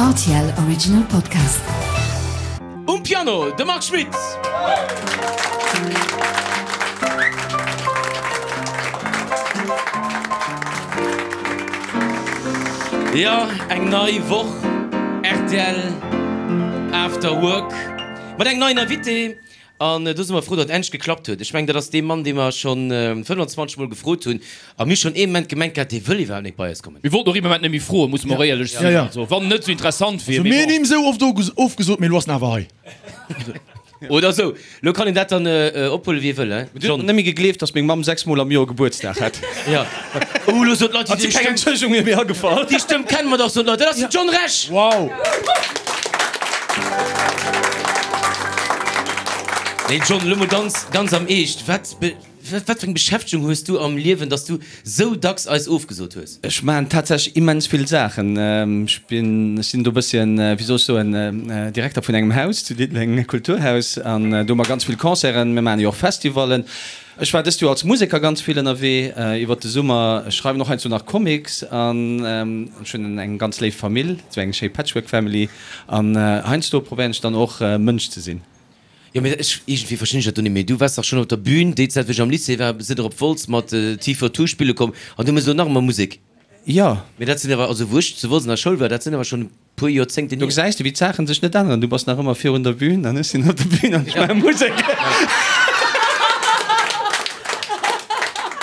Rtl Original Podcast. Um Piano de Marc Schmitt. Jo, eng nei Woch rtl After Work mat engem neien Invité. An do si mer frou, datt et endlech geklappt huet. Ech mengen, dat ass dee Mann, dee mer scho 25 Mol gefrot hunn. A mir hu schonn ee Moment gemengt gehat, dee wëll iwwerhaapt net bei eis kommen. Mir wollten och ee Moment net méi froen, musse mer och éierlech sinn. Also, wann en net esou interessant wier. Also mir hunn him esou oft ofgesot, mee elo ass en awer hei. Oder esou. Elo kann een dat dann ophuelen, wéi ee wëll, hein, John? Net méi gegleeft, datt meng Mamm 6 Mol am Joer Gebuertsdag hätt. Jo. Oh, elo soen d'Leit, Ass déi keng Stëmm. Entschëllegung mir méi agefall. Déi Stëmm kenne mer dach, soen d'Leit. Dat ass den John Rech! Wow! Nee, John, elo mol ganz, ganz am Eescht, Wat be. Wat fir eng Beschäftegung hues du am Liewen, dass du sou dacks eis ofgesot hues? Ech maachen tatsächlech immens vill Saachen. Ech bin, ech sinn do e bësschen, wéi soll ech soen, Direkter vun engem Haus zu Diddeleng, Kulturhaus, an do hu mer ganz vill Concerten. Mir maachen jo och Festivallen. Ech war dëst Joer als Museker ganz vill ënnerwee iwwert de Summer. Ech schreiwen och heiansdo nach Comics an ech hunn eng ganz léif Famill, esou eng schéi Patchwork Family. An heiansdo probéieren ech dann och Mënsch ze sinn. Jo, mee ech, iergendwéi verstinn ech dat do net méi. Du waars dach schonn op der Bühn déi Zäit, wou ech am Lycée war, sidd der op Wolz mat T42 spille komm an du méchs elo nach ëmmer Musek. Jo. Mee dat sinn awer, also wou ech zu Wolz an der Schoul war, dat sinn awer schonn e puer Joerzéngten Do hier. gesäis de, wéi d'Saachen sech net änneren. Du bass nach ëmmer virun der Bühn an ech sinn op der Bühn an ech maache Musek.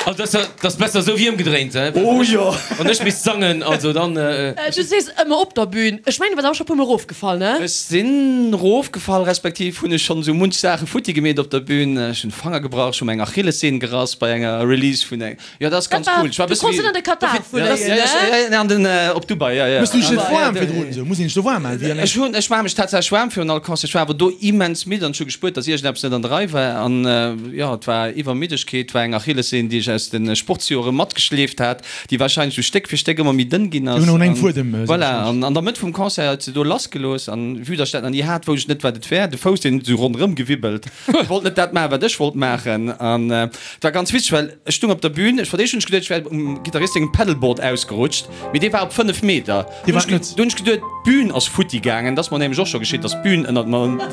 Also dat ass, dat ass besser esou wéi ëmgedréint, he? Oh jo! Wann ech misst sangen, also dann. Du sees ëmmer op der Bühn. Ech mengen, du bass awer scho e puer mol erofgefall, ne? Ech sinn erofgefall, respektiv hunn ech schonn esou munch Saache futti gemeet op der Bühn. Ech hunn Fanger gebrach, ech hu meng Achillessehn gerass bei enger Release vun eng. Jo, dat ass ganz cool. Ech war e bësse wéi. Du konns net an de Katar fléien, ne? Jo, jo, an den, op Dubai, jo, jo. Mëss du dech net waarm virdrun esou? Muss een sech do waarm maachen wéi an engem. Ech hunn, ech maache mech tatsächlech waarm virun all Concert. Ech war awer do immens midd an ech hu gespuert, dass iergendeppes net an der Rei war. An jo, et war Iwwermiddegkeet, et war eng Achillessehn, déi ech aus de Sportsjore matgeschleeft hat, déi warscheinlech esou Stéck fir Stéck ëmmer méi dënn ginn ass. Déi hunn och un engem Fuedem. Voilà, an an der Mëtt vum Concert huet se do lassgelooss an vue dass ech dat nach ni hat, wousst ech net, wat et wär. De Fouss, deen huet esou ronderëm gewibbelt. Ech wollt net dat maachen, wat ech wollt maachen. An et war ganz witzeg, well ech stung op der Bühn, ech fir d'éischt hunn ech geduet, ech wär um Gittarist sengem Pedalboard ausgerutscht, mee dee war op 5 Meter. Dee war et net. Du hunn ech geduet, d'Bühn ass futti gaangen. Dat ass mer nämlech och scho geschitt, dass d'Bühn ënnert mer,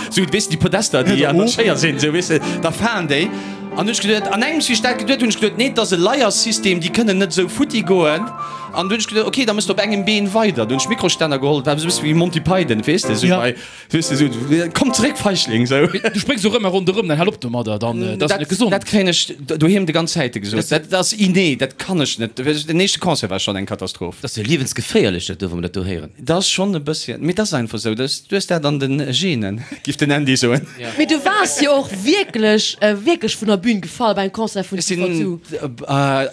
sou, weess de, déi Podester, déi an der Schéier sinn, sou, weess de, da falen déi. An hunn ech geduet, an engems, wéi ech dat geduet hunn, hunn ech geduet, nee, et ass e Leiersystem, déi kënnen net esou futti goen. An du hunn ech geduet, okay, da mëss de op engem Been weider. Du hunn ech Mikrostänner geholl, et war esou e bësse wéi Monty Python, weess de, sou bei. Weess de, sou, komm zeréck, Feigling, sou. Du spréngs och ëmmer ronderëm, dann hal op domadder, dann, dat ass net gesond. Dat kréien ech doheem de ganz Zäite gesot. Dat ass inné, dat kann ech net. Den éischte Concert war schonn eng Katastroph. Dat ass jo liewensgeféierlech, dat do, wa mer dat do héieren. Dat ass schonn e bësschen, mee dat ass einfach sou. Du hues dat an de Genen, giff den Andy soen. Mee du waars jo och wierklech, wierklech vun der Bühn gefall beim Concert vun Ech sinn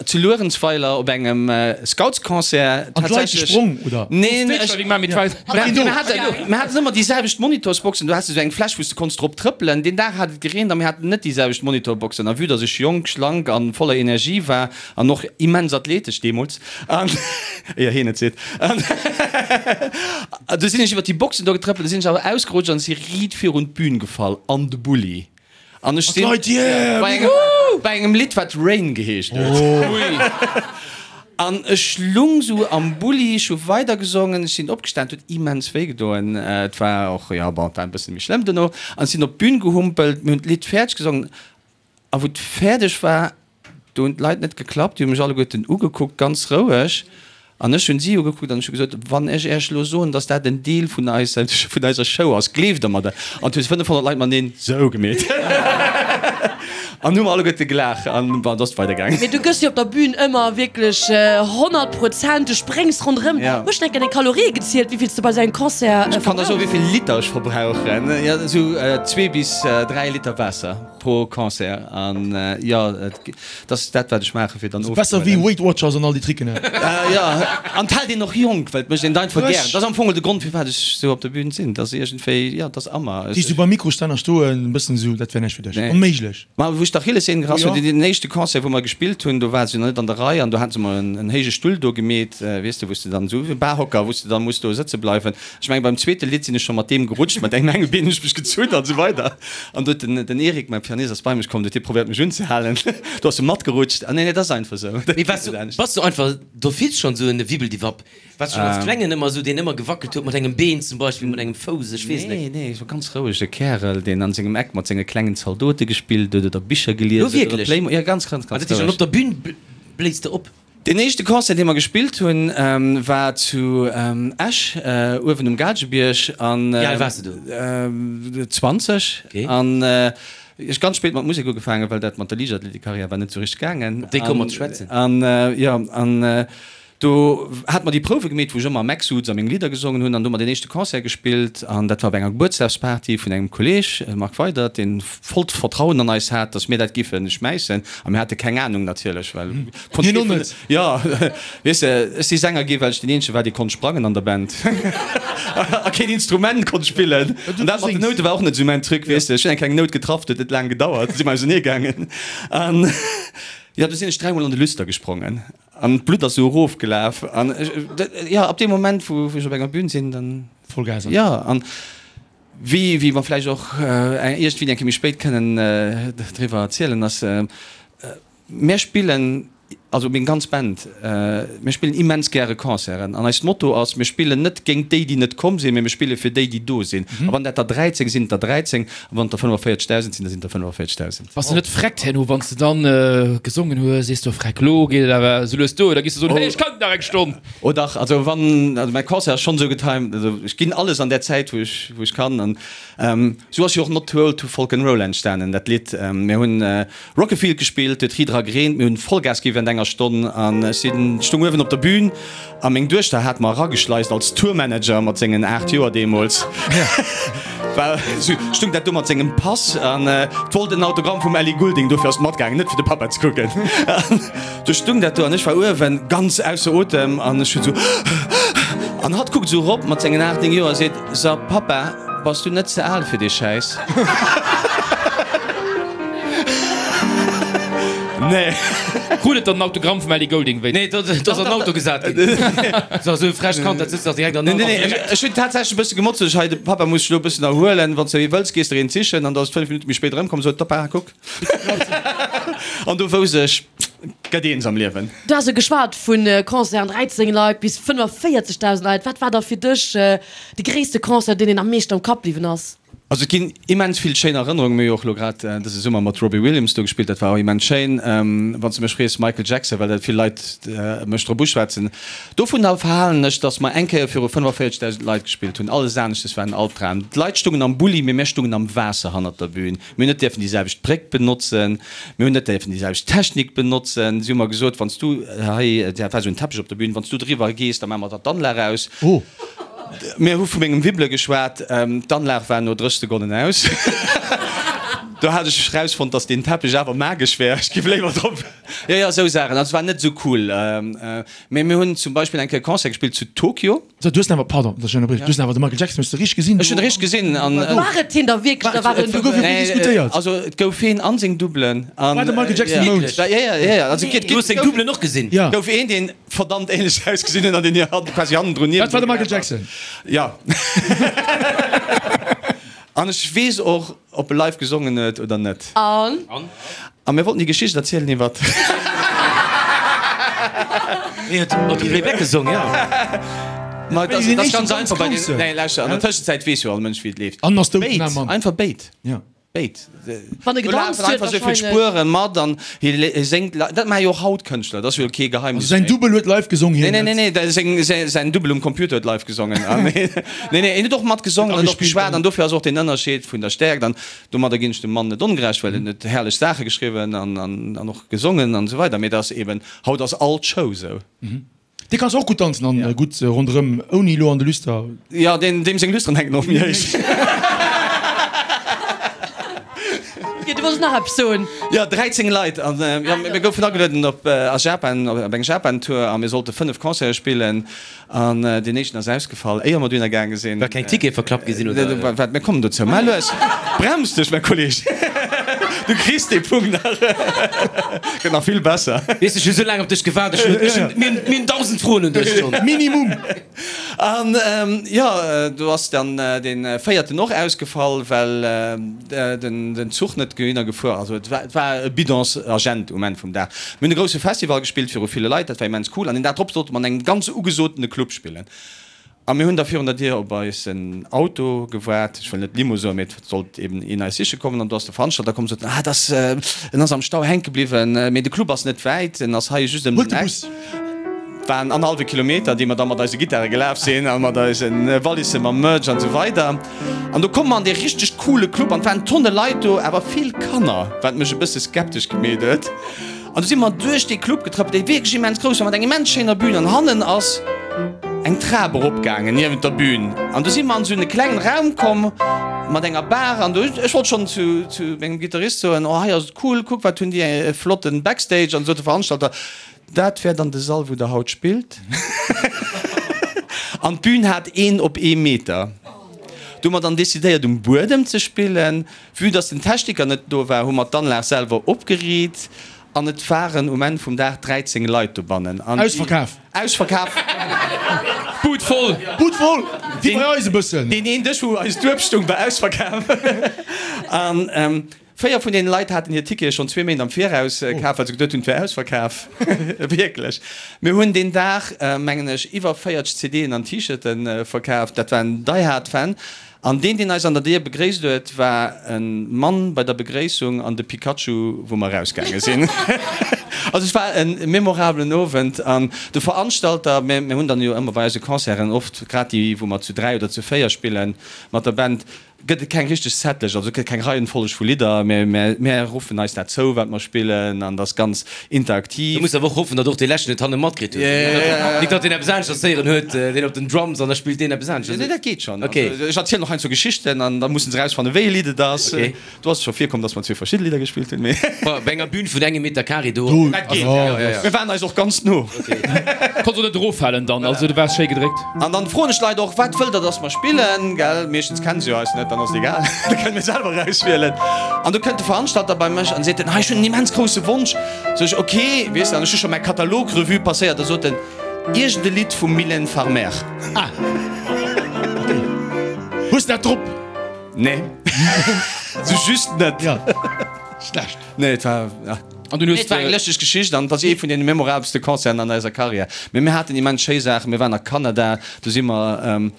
zu Luerenzweiler op engem Scoutsconcert. An d'Leit gesprong, oder? Neen, ech. Mir haten ëmmer déi selwecht Monitorsboxen. Du has esou eng Fläch, wou s de konns drop trëppelen. Deen Dag hat et gereent a mir haten net déi selwecht Monitorboxen. A vue dass ech jonk, schlank a voller Energie war an och immens athletesch deemools, an éier hien et seet, an du sinn ech iwwer déi Boxen do getrëppelt, du sinn ech awer ausgerutscht an si riit virun d'Bün gefall an de Bulli. An ech sinn bei engem, bei engem Lidd, wat Rain geheescht huet. An ech lung sou am Bulli, ech hu weidergesongen, ech sinn opgestan, et huet immens wéi gedoen. Et war och, jo, bon, et war e bësse méi schlëmm dono. An ech sinn op d'Bün gehumpelt, mir hunn d'Lidd fäerdeg gesongen. A wou et fäerdeg war, do hunn d'Leit net geklappt, déi hu mech alleguerten ugekuckt, ganz roueg. An ech hunn si ugekuckt an ech hu gesot, Wann ech Iech elo soen, datt dat en Deel vun eiser, vun eiser Show ass, gleeft Der mer dat? An et hu 500 Leit mateneen sou gemeet. An hu mer alleguerte gelaacht an bon, et ass weidergaangen. Mee du gëss jo op der Bühn ëmmer wierklech 100 Prozent, du spréngs ronderëm. Hues du eng Kéier deng Kalorië gezielt, wéi vill s du bei sou engem Concert Ech kann der soen, verbrauchs? wéi vill Liter ech verbrauchen. Jo, esou zwee bis 3 Liter Waasser. Pro Concert an jo et ass dat wat ech maachen fir dann Besser wéi Weight Watchers an all déi Tricken he. Jo an et hält een och jonk well et mécht een et einfach gären. Dat ass am Fong de Grond firwat ech sou op der Bühn sinn. Dat ass iergendwéi jo et ass a mer. Déi sou beim Mikrostänner stoen e bëssen esou dat wär näischt fir dech. Onméiglech. Ma wou ech d'Achillessehn gerass hunn, deen éischte Concert wou mer gespillt hunn, do war se jo nach net an der Rei an do hate se mer en héije Stull do gemeet, weess de wou s de dann esou e Barhocker wou s de dann muss do sëtze bleiwen. Ech mengen beim zweete Lidd sinn ech scho mat deem gerutscht, mat engem engem Been hunn ech mech gezunn an esou weider. An do huet den den Eric, mäi. Pianist ass bei mech komm, huet hie probéiert mech unzehalen, do ass e matgerutscht. Ah nee, nee, dat ass einfach esou. Mee waars du, bass du einfach d'office schonn esou en Wibbeldiwapp? Waars du schonn als Klengen ëmmer esou, deen ëmmer gewackelt huet mat engem Been zum Beispill, mat engem Fouss, ech weess net. Nee, nee, ech war ganz rouege Kärel, deen an sengem Eck mat senge klengen Zaldote gespillt huet oder Bicher gelies huet oder Wierklech? Playmo-, ja, ganz, ganz, Ah, ganz dat heescht, an roueg. op der Bühn bléis de op? Deen éischte Concert, dee mer gespillt hunn, war zu Esch, uewen um Gaalgebierg. Wéi al waars de do? 20. An ech ganz spéit mat Musek ugefaangen, well dat mat der Liichtathletikkarriär war net sou richteg gaangen. Op déi komme mer ze schwätzen. An jo, an do hate mer déi Prouwe gemeet, wou ech ëmmer am Eck souz a meng Lidder gesongen hunn. An do hu mer deen éischte Concert gespillt. An dat war op enger Gebuertsdagsparty vun engem Kolleeg, Marc Weydert, deen vollt Vertrauen an eis hat, dass mir dat giffe schmäissen. A mir hate keng Anung natierlech, well konnt Hien kee och vun net. Jo, weess de, ech si Sänger gi well ech deen eenzege war, dee konnt sprangen an der Band a keen Instrument konnt spillen. An dat mat den Noute war och net esou mäin Truc, weess de. Ech hunn eng kleng Nout getraff, dat huet net laang gedauert, du si mer ausenee gaangen. An jo, du sinn ech dräimol an de Lüster gesprongen an d'Blutt ass esou erofgelaf. An ech, jo, ab deem Moment, wou ech op enger Bün sinn, dann. Vollgas. Jo, an wéi, wéi mer vläicht och iergendwéi eng Kéier méi spéit kënnen driwwer erzielen, ass, Mär spillen, also meng ganz Band, mir spillen immens gäre Concerten an eist Motto ass, mir spillen net géint déi, déi net komm sinn, mee mir spille fir déi, déi do sinn. A wann dat der 13 sinn, der 13, a wann et der 45.000 sinn, da sinn et der 45.000. Bass de net freckt herno, wann s de dann gesongen hues, sees du, Freck, lo geet et awer esou lues duer, oder giss de soen, hey, ech kann nach eng Stonn? Oh dach, also wann, also mäi Concert ass schonn esou getimed, also ech ginn alles an där Zäit, wou ech, wou ech kann. An esou ass jo och Not Too Old To Folk 'n Roll entstanen, dat Lidd. Mir hunn Rockefield gespillt, huet ri dra gereent, mir hunn Vollgas gi während enger Stonn an ech sinn, stung uewen op der Bühn a meng Duechter hat mer erageschleist als Tourmanager mat sengen 8 Joer deemools, war sou, stung dat do mat sengem Pass an wollt en Autogramm vum Ellie Goulding, dofir ass et matgaangen, net fir de Pappa ze kucken. An du stung dat do an ech war uewen ganz ausser Otem an ech hunn sou an hatt kuckt sou erop mat sengen 8, 9 Joer a seet, So Pappa, bass du net ze al fir dee Schäiss? Nee. Krut et dann en Autogramm vum Ellie Goulding wéi? Nee, do ass an den Auto gesat ginn. So esou e frecht Kand, dat sëtzt dach direkt an den Nee, nee, Auto. ech hunn tatsächlech e bësse gemotzt, sot ech, hei, de Pappa muss sech elo e bëssen erhuelen, wann s de wëlls, gees de der een sichen. An da ass et 5 Minutte méi spéit erëmkomm, sot, Pappa, kuck. An do wousst ech, gëtt eens am Liewen. Du has jo geschwat vu Concerten, 13 Leit bis 45.000 Leit. Wat war da fir dech de gréisste Concert, deen een am meeschten am Kapp bliwwen ass? Also et ginn immens vill schéin Erënnerungen. Mir hu jo och elo grad dëse Summer mat Robbie Williams do gespillt, dat war och immens schéin. Wann s de mech frees, Michael Jackson, well dat vill Leit mech drop uschwätzen. Dovun verhalen ech, datt mer eng Kéier viru 45.000 Leit gespillt hunn. Alles aneschtes war en Albdram. D'Leit stungen am Bulli, mee mir stungen am Waasser hannert der Bühn. Mir hunn net dierfen déi selwecht Bréck benotzen, mir hunn net dierfen déi selwecht Technik benotzen. Si hu mer gesot, wann s du hei, dat war esou en Teppech op der Bühn, wann s du driwwer gees, da maache mer der d'Anlag aus. Oh. Mir hu vu mengem Wibbele geschwat, d'Anlag war no 30 Sekonnen aus. Do hat ech erausfonnt, datt deen Teppech awer magesch wär, ech giff léiwer drop. Jo, jo, esou Saachen. Also, et war net esou cool. Mee mir hunn zum Beispill eng Kéier e Concert gespillt zu Tokio. So, du hues awer, pardon, dass ech ënnerbriechen, du hues awer de Michael Jackson hues de richteg gesinn? Ech hunn richteg gesinn an. War et hien da wierklech oder war et en Do gouf jo Double? vill diskutéiert. Also et gouf heen an seng Doublen an. War de Michael Jackson um Mound? Ja, ja, ja, ja, also et Du hues seng Doublen och gesinn? Ja. gouf een, deen verdammt ähnlech ausgesinn huet an deen hir quasi hannendrun Dat war de Michael Jackson. Ja. An ech weess och, ob e live gesongen huet oder net. An? A mir wollten déi Geschicht erzielen iwwer. Hien huet op de Playback gesong, jo. Ma et ass, Deen et ass éischten ganz ganz einfach bei den. grousse. Nee, lauschter, an der Tëschenzäit weess jo all Mënsch, wéi et leeft. An ass dout, Béid, den Mann. einfach béid. Ja. Béid. Wann e Do gedanzt lafen huet einfach esou vill wahrscheinlech. Spueren mat an hie hie séngt li-, dat maache jo och haut Kënschtler, dat ass jo kee Geheimnis Also säin méi. Dubbel huet live gesong, Nee, hien nee, net. nee, nee, da seng, säi, säin Dubbel um Computer huet live gesongen. An nee, nee, nee, hien huet och mat gesongen an och Agespillt geschwat an. an dofir ass och deen Ënnerscheed vun der Stäerkt an domadder ginn ech dem Mann net ongerecht, well en huet herrlech Saache geschriwwen an, an, an och gesongen an esou weider, mee et ass eben, haut ass all d'Show esou. Dee kanns och gutt danzen an gutt ronderëm ouni elo an de Lüster. Jo, deen deem seng Lüsteren hänken och méi héich. Jo, du wollts nach eppes soen. Jo, 13 Leit an jo, mir goufen agelueden op a Japan, op eng Japan-Tour a mir sollte 5 Concerte spillen an deen éischten ass ausgefall, éier mer dohinner gaange sinn. Well keng Tickete verklappt gi sinn, oder? Waart, mir kommen dozou. Mä lues, brems dech, mäi Kolleg. Du kriss dee Punkt nach. Gëtt nach vill besser. Weess ech hu sou laang op dech gewaart. Ech hunn, ech hunn, mir hunn, mir hunn 1.000 Froen un dech schonn. Minimum. An jo, do ass dann dee véierten och ausgefall, well den Zuch net dohinner gefuer ass. Also et war, et war e Bidonsagent um Enn vum Dag. Mir hunn e grousse Festival gespillt viru ville Leit, dat war immens cool. An deen Dag drop sollte mer an engem ganz ugesotene Club spillen. A mir hunn da virun der Dier op eisen Auto gewaart, ech wëll net Limo soen, mee et sollt eben een eis siche kommen. An do ass de Veranstalter komm, sot, ah, et ass, en ass am Stau hänke bliwwen, mee de Club ass net wäit, en ass hei just ëm den Eck. Waren annerhallwe Kilometer, déi mer da mat eise Gittare gelaf sinn a mat eise Wallisse mam Merch an esou weider. An do komme mer an dee richteg coole Club an et waren Tonne Leit do, awer vill Kanner, wat mech e bësse skeptesch gemeet huet. An du si mer duerch dee Club getrëppelt, dee wierklech immens grouss war, mat eng immens schéiner Bühn. An hannen ass eng Trap eropgaangen niewent der Bühn. An du si mer an esou e klengen Raum komm mat enger Bar. An du, ech wollt schonn zu, zu mengem Gittarist soen, Oh, hei ass et cool, kuck, wat hunn déi e flotten Backstage. An du sot de Veranstalter, Dat wär dann de Sall, wou der haut spillt. An d'Bühn hat een op ee Meter. Du hu mer dann decidéiert, um Buedem ze spillen. Vue dass den Techniker net do war, hu mer d'Anlag selwer opgeriit an et waren um Enn vum Dag 13 Leit dobannen. An déi. Ausverkaf! Ausverkaf! Bud voll! Bud voll! Wéi bei eis e bëssen. Deen een Dësch, wou eis Dueb stung, war ausverkaf. An 4 vun deene Leit haten hir Tickete schonn zwee Méint am Viraus kaf, well se geduet hunn, et wär ausverkaf. Wierklech. Mir hunn deen Dag, mengen ech, iwwer 40 CDen an T-Shirte verkaf. Dat waren Die Hard Fan. An deen, deen eis an der Dier begréisst huet, war e Mann bei der Begréissung an de Pikachu, wou mer erausgaange sinn. Also et war e memorabelen Owend. An de Veranstalter, mir hunn dann jo ëmmer bei eise Concerten oft, grad déi, wou mer zu 3 oder zu 4 spillen mat der Band, gëtt et keng richteg Setlëscht, also et gëtt keng Reihenfolleg vu Lidder, mä mär ruffen eis dat zou, wat mer spillen, an et ass ganz interaktiv. Du muss awer och hoffen, datt och dee leschten et hanne matkritt huet. Nik datt deen eppes aneschters héieren huet, deen op den Drums, an da spillt deen eppes aneschters. Nee, dat geet schonn. Also ech erzielen och heiansdo Geschichten an da mussen se erausfannen, wéi e Lidd et ass. Do ass et scho virkomm, datt mer zwee verschidde Lidder gespillt hunn, mee. Bei enger Bühn vun engem Meter Carré do. Dat geet, jo. Mir waren eis och ganz no. Konns och net eroffalen dann, also du waars schéi gedréckt. An dann froen ech d'Leit och, Wat wëllt der, dass mer spillen? Gell, meeschtens kennen se jo eis net, dann ass et egal, da kënne mir selwer erauswielen. An du kënnt de Veranstalter bei mech an seet en, Hei, ech hunn en immens grousse Wonsch. Sot ech, Ok, weess de, an ech hu scho mäi Katalog Revue passéiert. Da sot en, Iergend e Lidd vum Mylène Farmer. Ah, ok. Hues de dat drop? Nee, sou just net. Ja, schlecht. Nee, et war, ja. An dunn hues Et war eng de. lëschteg Geschicht an et ass ee vun deene memorabelste Concerten an eiser Karriär. Mee mir haten immens schéi Saachen. Mir waren a Kanada, do si mer,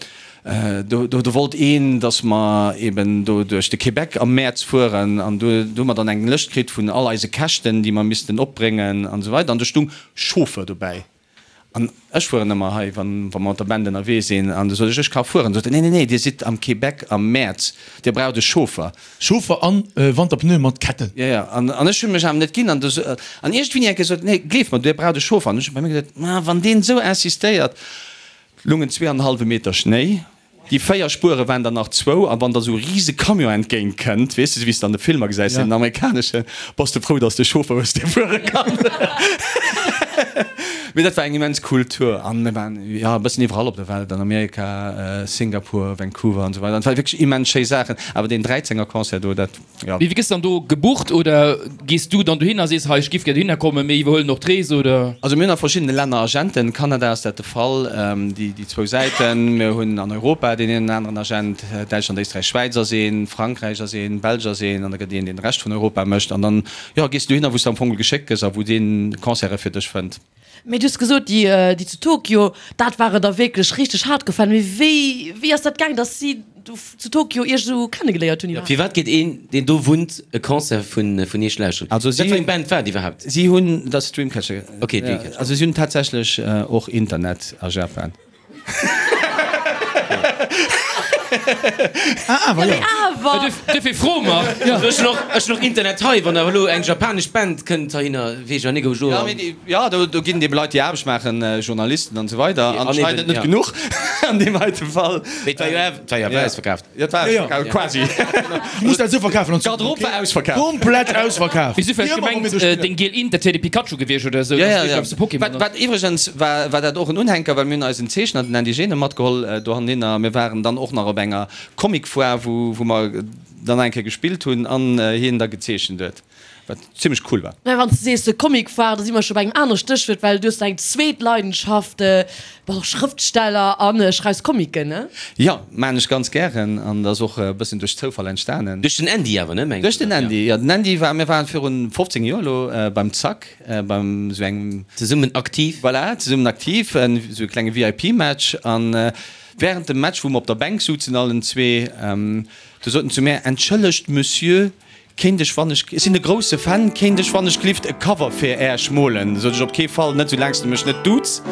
do, do wollt een, datt mer eben do duerch de Québec am Mäerz fueren an do, do hu mer dann eng Lëscht kritt vun all eise Käschten, déi mer missten opbréngen an esou weider an do stung Chauffeur dobäi. An ech fueren ëmmer hei, wa mer mat der Band ënnerwee sinn. An du sot ech, ech ka fueren. Sot en, nee, nee, nee, Dir sidd am Québec am Mäerz, Dir braucht e Chauffer. Chauffer an Wanterpneu mat Ketten. Jo, jo. An ech hunn mech awer net ginn. An du, an iergendwéini eng Kéier sot en, nee, gleeft mer, Dir braucht e Chauffer. An ech hu bei mir geduet, ma wann deen esou insistéiert. Lungen zweeanenhallwe Meter Schnéi. Déi 4 Spuere waren der nach zwou, a wann der esou e rise Camion entgéint kënnt, weess de, esou wéi s de an de Filmer gesäis, den amerikaneschen, bass de frou, dass de Chauffer hues, dee fuere kann. Mee dat war eng immens cool Tour an mir waren, jo, e bëssen iwwerall op der Welt, an Amerika, Singapur, Vancouver an esou weider. An et ware wierklech immens schéi Saachen. Awer deen 13er Concert do, dat. Ja. Mee wéi gëss dann do gebucht oder gees du dann dohinner a sees, hei ech giff gär dohinner kommen, mir iwwerhuelen och d'Rees oder? Also mir hunn a verschiddene Länner Agenten, Kanada ass dat de Fall, déi déi zwou Säiten. Mir hunn an Europa deen een oder aneren Agent, Däitschland, Éisträich, Schwäiz ass een, Frankräich ass een, Belsch ass een an da gëtt een deen de Rescht vun Europa mécht an dann, jo, gees du dohinner wou s de am Fong geschéckt gëss a wou dee Concerte fir dech fënnt. Mee du hues gesot, déi déi zu Tokio, dat ware der wierklech richteg haart gefall. Mee wéi wéi ass dat gaang, datt si do zu Tokio iech esou kennegeléiert hunn iwwerhaapt? Firwat geet een, deen do wunnt, e Concert vun vun iech lauschteren? Also si Wat fir eng Band war et iwwerhaapt? Si hunn, dat ass Dreamcatcher. Ok, Dreamcatcher. Also si hunn tatsächlech och Internet a Japan. Ah, awer, jo. Awer! Duerfir froe mer. Also ech hunn och, ech hunn och Internet hei, wann awer elo eng japanesch Band kënnt heihinner, weess ech awer net, ob ech do. Ja, mee déi, ja, do, do ginn et ebe Leit, déi Aarbecht maachen, Journalisten an esou weider, anscheinend net genuch an deem heite Fall. Mee et war jo awer, et war jo awer ausverkaaft. Jo, et war ausverkaaft, quasi. Du muss dat esou verkafen an D'Garderobe war ausverkaaft. Komplett ausverkaaft. Wéi si vläicht gemengt, deng giel Int, dat wier de Pikachu gewiescht oder esou, Ja, dass ja, du ja. eppes Pokémon Wat, wat iwwregens war, war dat och en Unhänker, well mir hunn eisen Zeechner, den Indigene, matgeholl dohinner. Mir waren dann och nach op enger Comic-Foire, wou, wou mer. dann nach eng Kéier gespillt hunn an hien da gezeechent huet, wat zimmlech cool war. Mä wann s de sees de Comic war, da si mer scho bei engem anere Stéchwuert, well du hues eng zweet Leidenschaft, bass och Schrëftsteller a schreifs Comicen, ne? Jo, maan ech ganz gären an dat ass och e bëssen duerch Zoufall entstanen. Duerch den Andy awer, ne, mengs Duerch den Andy, jo. Den Andy war, mir waren virun 15 Joer elo beim Zack, beim esou engem. Zesummen aktiv. Voilà, zesummen aktiv, esou e klenge VIP-Match an während dem Match, wou mer op der Bänk suzen allen zwee, du sot en zu mär, Entschëllegt Monsieur, Kéint ech wann ech, ech sinn e grousse Fan, kéint ech wann ech glift e Cover fir Äerch molen? Sot ech, op kee Fall, net sou laang s de mech net duuts.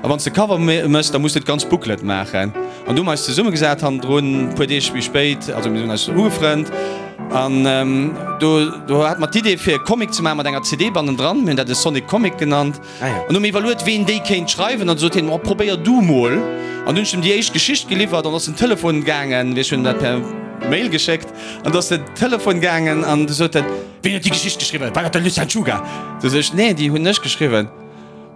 A wann s de Cover mëss, da muss de d'ganz Booklet maachen. An du hu mer eis zesummegesat hannendrun, e puer Deeg méi spéit, also mir hunn eis ugefrënnt an do do hate mer d'Idee fir e Comic ze maachen mat enger CD bannendran, mir hunn dat e Sonic Comic genannt. An hu mir iwwerluet ween déi kéint schreiwen an du sot hien, oh probéier du mol. An du hunn ech em déi éischt Geschicht geliwwert an ass den Telefon gaangen, ech hunn dat per Mail geschéckt. An du ass den Telefon gaangen an du sot en, Ween huet déi Geschicht geschriwwen? War dat de Lucien Czuga? Du sot ech, Nee, déi hunn ech geschriwwen.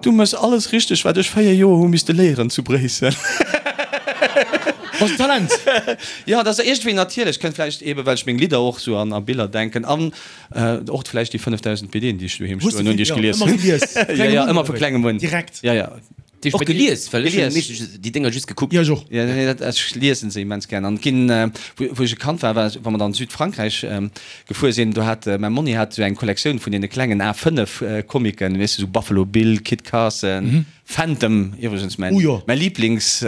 Du méchs alles richteg, wat ech 4 Joer hu misste léieren zu Bréissel. Bass en Talent! Jo, dat ass iergendwéi natierlech. Kënnt vläicht eebe well ech meng Lidder och sou an a Biller denken an och vläicht déi 5.000 BDen, déi ech doheem stoen hunn, déi ech gelies hunn. Jo, jo, ëmmer vu klengem un. Direkt. Jo, jo. Och gelies? Well ech hunn meeschtens déi Dénger just gekuckt. Jo, ech och. Jo, nee, dat, ech liesen se immens gären. An et ginn, wou, wou ech e Kand war, war, wa mer dann Südfrankräich gefuer sinn, do hat mäi Monni hat esou eng Kollektioun vun deene klengen A5 Comicken, weess de, esou Buffalo Bill, Kit Carson, Phantom, iwwregens mäin, mäi Lieblings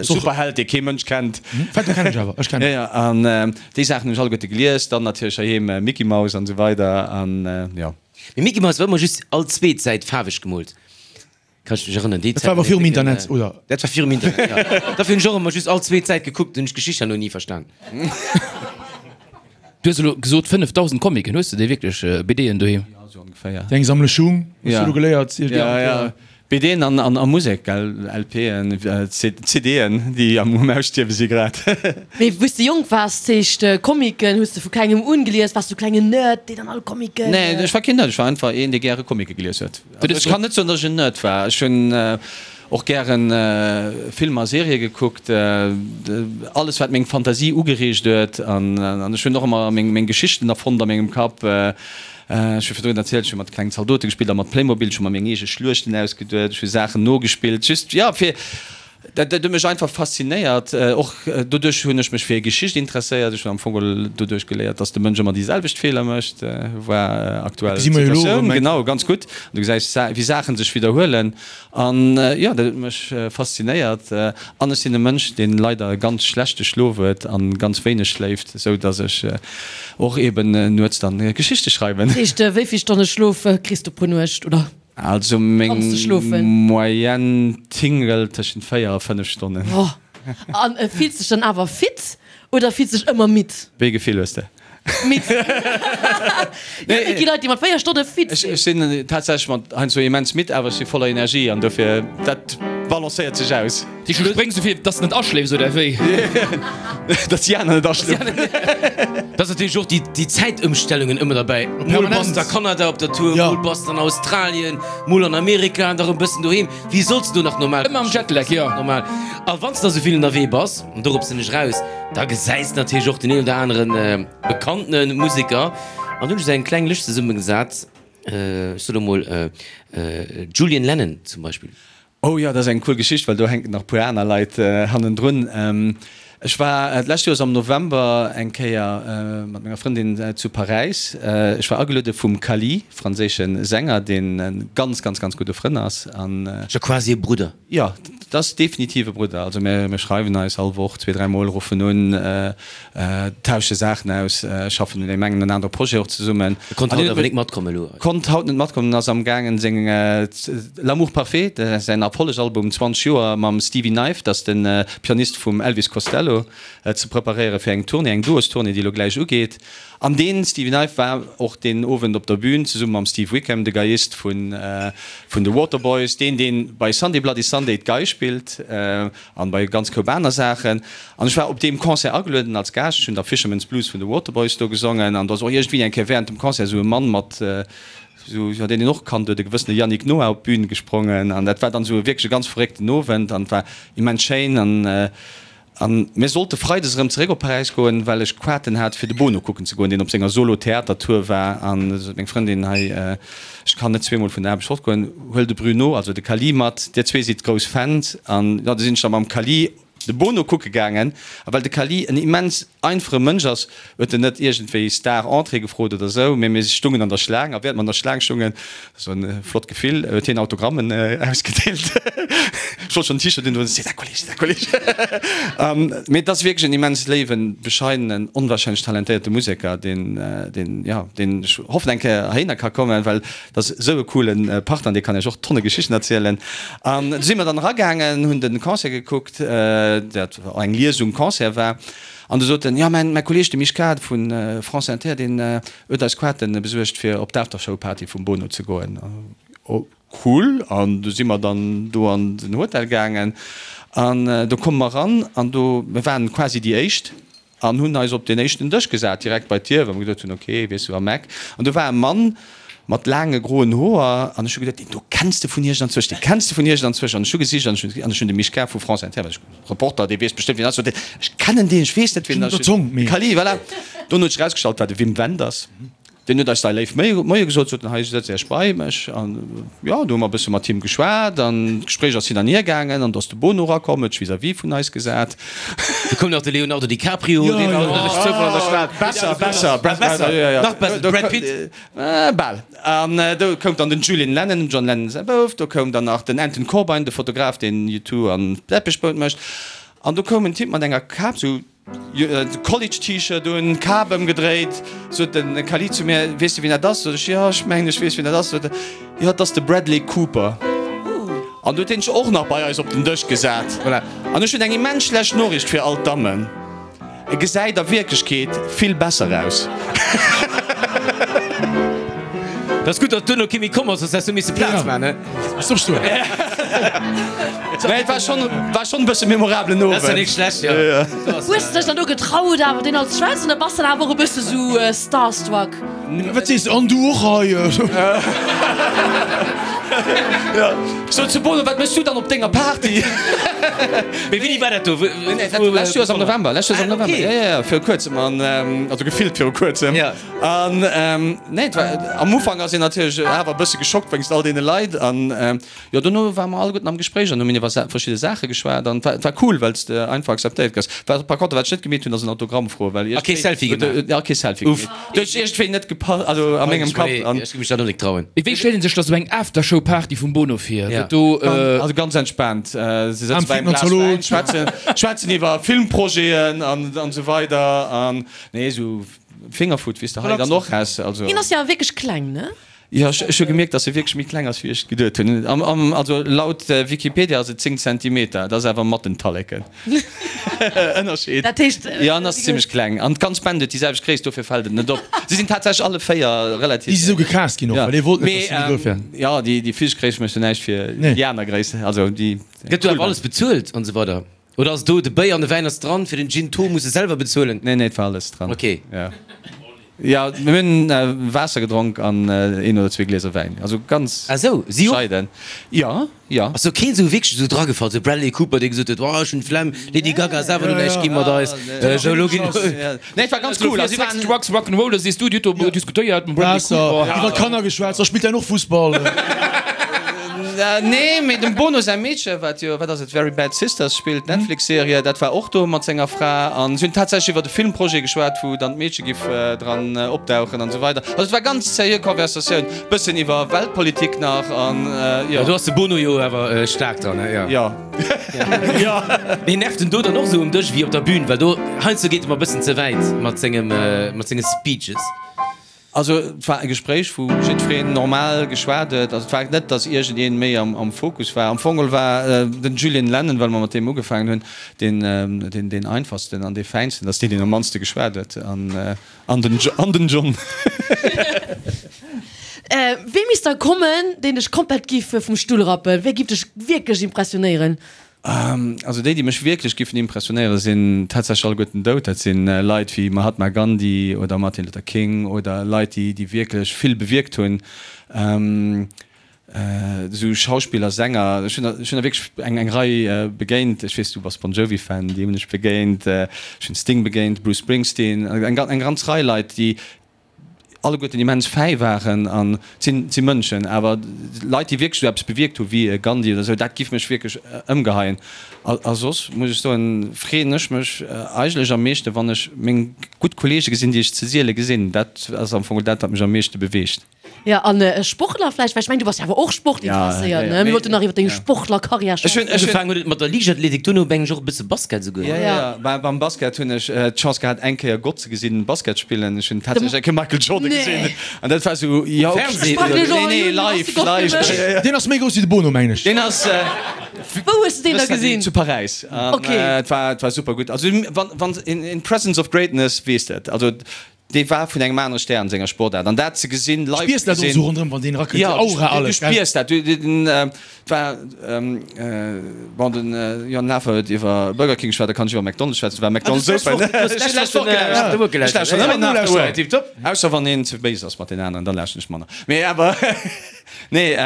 Superheld, dee kee Mënsch kennt. Phantom kennen ech awer, ech kennen. Jo, jo, an déi Saachen hunn ech alleguerte gelies, dann natierlech heiheem Mickey Mouse an esou weider an jo. Mee Mickey Mouse war ëmmer just all zweet Säit faarweg gemoolt. Kann ech mech erënneren, déi Dat war awer virum Internet, oder? Dat war virum Internet, ja. Dofir hunn ech och ëmmer just all zweet Säit gekuckt, hunn ech d'Geschicht herno ni verstan. Du hues elo gesot 5.000 Comicen, hues de déi wierklech, BDen doheem? Jo, sou ongeféier. Déi eng Sammlung Schung, hues du elo geléiert? Ja, ja. BDen an, an a Musek, gell, LPen, CDen, déi am um Ausstierwe si grad. Mee wou s de jonk waars, zeecht Comicen hues de vu klengem un gelies? Waars du klengen Nerd, deen dann all Comicen. Nee, ech war keen Nerd, ech war einfach een, dee gäre Comicë gelies huet. Ech kann net soen, datt ech en Nerd war. Ech hunn och gären Filmer a Serië gekuckt, alles wat meng Fantasie ugereegt huet. An ech hunn och ëmmer meng Geschichten erfonnt a mengem Kapp. Ech hu virdrun erzielt, ech hu mat klengen Zaldote gespillt a mat Playmobil. Ech hu mer meng eege Schluechten ausgeduet, ech hu Saachen nogespillt, just jo fir Dat huet mech einfach faszinéiert. Och doduerch hunn ech mech fir Geschicht interesséiert. Ech hunn am Fong geholl doduerch geléiert, dass de Mënsch ëmmer déi selwecht Feeler mécht. War aktuell Situatioun, genau, ganz gutt. Du gesäis, wéi Saache sech widderhuelen. An jo, dat huet mech faszinéiert. An ech sinn e Mënsch, dee leider e ganz schlechte Schlof huet a ganz wéineg schléift, esou dass ech och eeben nuets dann Geschichte schreiwen. Dat heescht, wéi vill Stonne Schlof kriss du pro Nuecht, oder? Also meng Moyenne tingelt tëschent 4 a 5 Stonnen. Oh, an fills dech dann awer fit oder fills dech ëmmer midd? Wéi e Gefill hues de? Midd. Jo, et gi Leit, déi mat 4 Stonne fit sinn. Ech sinn tatsächlech mat heiansdo immens midd, awer ech si voller Energie an dofir, dat balancéiert sech aus. Du spréngs esou vill, dass de net aschléifs, oder wéi? Dass déi aner net aschlofen. Da ass natierlech och déi Zäitëmstellungen ëmmer derbäi. Mol bass de a Kanada op der Tour, mol bass de an Australien, mol an Amerika an da rëm bëssen doheem. Wéi solls de do nach normal Ëmmer am Jetlag, jo. Normal. A wann s de da sou vill ënnerwee bass, an dorop sinn ech raus, da gesäis de natierlech och den een oder anere bekannte Museker. An do hunn ech esou eng kleng Lëscht zesummegesat, ech soe lo mol Julian Lennon zum Beispill. Oh jo, dat ass eng cool Geschicht, well do hänken nach puer aner Leit hannendrun. Ech war d'lescht Joers am November eng Kéier mat menger Frëndin zu Paräis. Ech war ageluede vum Cally, franséische Sänger, deen e ganz, ganz, ganz gudde Frënn ass. An. Scho quasi e Brudder. Jo, dat ass definitiv e Brudder. Also mir schreiwen eis all Woch zwee, dräi Mol, ruffen un. Tausche Saachen aus, schaffen un engem an anere Projet och zesummen. E konnt haut awer nik matkommen elo. Konnt haut net matkommen, ass am gaangen seng L'amour parfait, säin Erfollegalbum 20 Joer mam Stevie Knife, dat ass de Pianist vum Elvis Costello, ze preparéiere fir eng Tournée, eng Duostournée, déi elo gläich ugeet. An dee Stevie Knife war och deen Owend op der Bühn zesumme mam Steve Wickham, de Geiist vun de Waterboys, deen dee bei Sunday Bloody Sunday d'Gei spillt. An bei ganz Koup aner Saachen. An ech war op deem Concert agelueden als Gaascht. Ech hunn da Fisherman's Blues vun de Waterboys do gesongen. An do ass och iergendwéi eng Kéier während dem Concert esou e Mann mat esou, jo, deen een och kannt huet, e gewëssene Yannick Noah op d'Bün gesprongen. An dat war dann esou wierklech e ganz verréckten Owend an et war immens schéin. An. An mir sollte freides erëm zeréck op Paräis goen, well ech Quaten hat fir de Bono kucken ze goen, deen op senger Solo-Theater-Tour war. An du sot meng Frëndin, hei, ech kann net zweemol vun der Aarbecht fortgoen, huel de Bruno, also de Kali mat, dir zwee sidd grouss Fans. An jo, du sinn ech da mam Kali de Bono kucke gaangen. A well de Kali en immens einfache Mënsch ass, huet en net iergendwéi Star-Entrée gefrot oder esou, mee mir stungen an der Schlaang a während mer an der Schlaang stungen, dat war e flott Gefill, huet hien Autogrammen ausgedeelt. Ech wollt schonn en T-Shirt undoen, C'est un collège, c'est un collège. Mee et ass wierklech en immens léiwen, bescheidenen, onwahrscheinlech talentéierte Museker, deen, deen, jo, deen ech hoffen eng Kéier heihinner ka kommen, well dat ass esou e coole Partner, dee kann iech och tonne Geschichten erzielen. An du si mer dann eragaangen, hunn de Concert gekuckt, dat eng Liesung-Concert war. An du sot en, jo, mäin Kolleeg, de Mischka vu France Inter, deen huet eis Quaten besuergt, fir op d'Aftershow-Party vum Bono ze goen. Oh, cool! An du si mer dann do an den Hotel gaangen an do komme mer eran an do, mir waren quasi déi Éischt an hunn eis op deen éischten Dësch gesat, direkt bei d'Dier, well mer geduet hunn, okay, weess du, am Eck. An do war e Mann mat laange groen Hoer an ech hu geduet, deen do kenns de vun iergendanzwousch, dee kenns de vun iergendanzwousch. An ech hu gesicht an ech hunn de Mischka vu France Inter, well ech Reporter, dee weess bestëmmt wien ass, sot hien, ech kennen deen, ech weess net wien ass. Kali, voilà. Dono huet sech erausgestallt, war de Wim Wenders. Deen huet eis da léif Moie gesot, sot en, hei sëtzt Iech bei mech. An jo, do hu mer e bësse mat him geschwat an d'Gespréich ass hin an hier gaangen an do ass de Bono erakomm, huet sech vis-à-vis vun eis gesat. Do koum nach de Leonardo DiCaprio, deen war och duerch Zoufall an der Stad. Besser, besser, besser, nach besser, de Brad Pitt. Bal. An do koum dann den Julian Lennon, dem John Lennon säi Bouf. Do koum dann nach den Anton Corbijn, de Fotograf, deen U2 an Depeche Mode mécht. An do koum en Typ mat enger Kap, sou College-T-Shirt un, Kap ëmgedréit. Sot de Khalid zu mir, Weess de, wien dat ass? Sot ech, Jo, ech mengen, ech weess, wien dat ass. Sot e, Jo, dat ass de Bradley Cooper. An du huet hien sech och nach bei eis op den Dësch gesat. Voilà. An ech hunn eng immens schlecht Noriicht fir all d'Dammen. E gesäit a Wierklechkeet vill besser aus. Dat ass gutt, datt duerno kee méi komm ass, soss häss du misse Plaz man, he? Nee, et war schonn, war schonn e bësse memorablen Owend. Dat ass jo nik schlecht, jo. Hues de dech dann do getraut awer deen als schwätzen oder bass dann awer och e bësse sou starstruck? Wat sees de? An du och hei? Sot zu Bono, wat méchs du dann op denger Party? Mee wéini war dat do? Lescht Joers am November, lescht Joers am November, jo, jo, jo, viru kuerzem an, also gefillt viru kuerzem. An nee, et war, am Ufank ass een natierlech awer e bësse geschockt wéinst all deene Leit an jo, dono ware mer alleguerten am Gespréich an hu mir iwwer verschidde Saache geschwat an et war, et war cool, well s de einfach akzeptéiert gëss. Wat par contre, wat ech net gemeet hunn, ass en Autogramm froen, well A kee Selfie gemaach? Ja, kee Selfie gemeet. Dat huet iergendwéi net gepasst, also a mengem Kapp an. Ech géif mech dat och net trauen. Mee wéi stellt een sech da sou eng Aftershow-Party vum Bono vir? Gëtt do. Also ganz entspaant, se sëtze bei engem Glas Wäin, schwätzen, schwätzen iwwer Filmprojeten an esou weider an nee, esou Fingerfood, wéi s de hei dann och häss. Also. Hien ass jo awer wierklech kleng, ne? Jo, ech hu gemierkt, dass e wierklech méi kleng ass, wéi ech geduet hunn. Am, am, also laut Wikipedia ass et 10 Zentimeter, dat ass awer mat den Talleken. Ënnerscheed. Dat heescht. Jo, en ass zimmlech kleng. An d'ganz Band huet déi selwecht Gréisst, dofir fält et net op. Si sinn tatsächlech alle 4 relativ. Déi si sou gecast ginn och, well ee wollt net, dass si méi grouss wären. Jo, déi, déi physesch Gréisst mécht jo näischt fir déi aner Gréisst. Also déi. Gëtt do awer alles bezuelt an esou weider? Oder ass do de Béier an de Wäin ass dran, fir den Gin Tho muss e selwer bezuelen? Nee, nee, et war alles dran. Ok. Ja, ja, mir hunn Waasser gedronk an een oder zwee Glieser Wäin. Also ganz Ah sou, si och? bescheiden. Ja, ja. Ass do keen esou wierklech esou dragefall, sou Bradley Cooper, dee gesot huet, oh ech hunn d'Flemm, Lady Gaga ass awer elo näischt gi mat eis, sou elo ginn. Nee, et war ganz cool. Also, Sex, Drugs, Rock'n'Roll, da sees du, Dir hutt do diskutéiert mam Bradley Waasser, Cooper. iwwer Kanner geschwätzt, da spillt däin och Fussball. Nee, mee dem Bono säi Meedche, wat jo, wat ass et, Very Bad Sisters spillt, d'Netflix-Serie, dat war och do mat senger Fra. An si hunn tatsächlech iwwer e Filmprojet geschwat, wou dann d'Meedche giff dran opdauchen an esou weider. Also et war ganz seriö Conversatioun, bëssen iwwer Weltpolitik nach an jo. Do ass de Bono jo awer staark dran, he? Jo. Jo. Mee nervt en do dann och esou um Dësch wéi op der Bühn? Well do heiansdo geet e mer e bëssen ze wäit mat sengem, mat senge Speeches. Also et war e Gespréich, wou jiddwereen normal geschwat huet. Also et war net, datt iergendeen méi am Fokus war. Am Fong geholl war den Julian Lennon, well mer mat deem ugefaangen hunn, deen deen einfachsten an dee fäinsten, datt deen deen am mannste geschwat huet. An den an den John. Wee misst da kommen, deen dech komplett giff vum Stull rappen? Wee giff dech wierklech impressionéieren? Also déi, déi mech wierklech giffen impressionéieren, sinn tatsächlech alleguerten dout. Dat si Leit wéi Mahatma Gandhi oder Martin Luther King oder Leit, déi, déi wierklech vill bewierkt hunn. Esou Schauspiller, Sänger, ech hunn der, ech hunn der wierklech eng, eng Rei begéint. Ech weess, du bass Bon Jovi-Fan, déi hunn ech begéint. Ech hunn Sting begéint, Bruce Springsteen, eng, eng ganz Rei Leit, déi alleguerten immens fäi waren. An et sinn, et si Mënschen. Awer Leit, déi wierklech esou eppes bewierkt hu wéi e Gandhi oder esou, dat giff mech wierklech ëmgeheien. A, a soss muss ech soen, freeën ech mech eigentlech am meeschte, wann ech meng gutt Kollege gesinn, déi ech ze siele gesinn. Dat ass am Fong dat, wat mech am meeschte beweegt. Ja, an e Sportler vläicht, well ech mengen, du bass jo awer och sportinteresséiert, ne? Mir wollten nach iwwer deng Sportlerkarriär schwätzen. Ugefaangen huet et mat der Liichtathletik, duerno mengen ech och e bësse Basket esouguer. Jo, jo, beim Basket hunn ech d'Chance gehat, eng Kéier Gott ze gesinn Basket spillen. Ech hunn tatsächlech eng Kéier Michael Jordan gesinn an dat war esou, jo, Fernseh oder? Nee, nee, live, live. Deen ass méi grouss wéi de Bono, mengen ech. Deen ass. Wou hues de deen da gesinn? Zu Paräis. Ok. Et war, et war super gutt. Also wann, wann, in presence of greatness, weess de et. Also Dee war vun engem anere Stär an senger Sportaart an dat ze gesinn, live ze gesinn. Du spiers dat och esou ronderëm, wann deen erakënnt, déi Aura, alles, gell? Du spiers dat. Et war, bon, den Johann Lafer huet iwwer Burger King geschwat, da kann ech iwwer McDonald's schwätzen, et war McDonald's Open. Ech hu d'lescht Woch gelauschtert. Ech lauschteren ëmmer nach After Work. Ausser wann een ze béis ass mat den aneren, dann lauschteren ech manner. Mee awer, nee,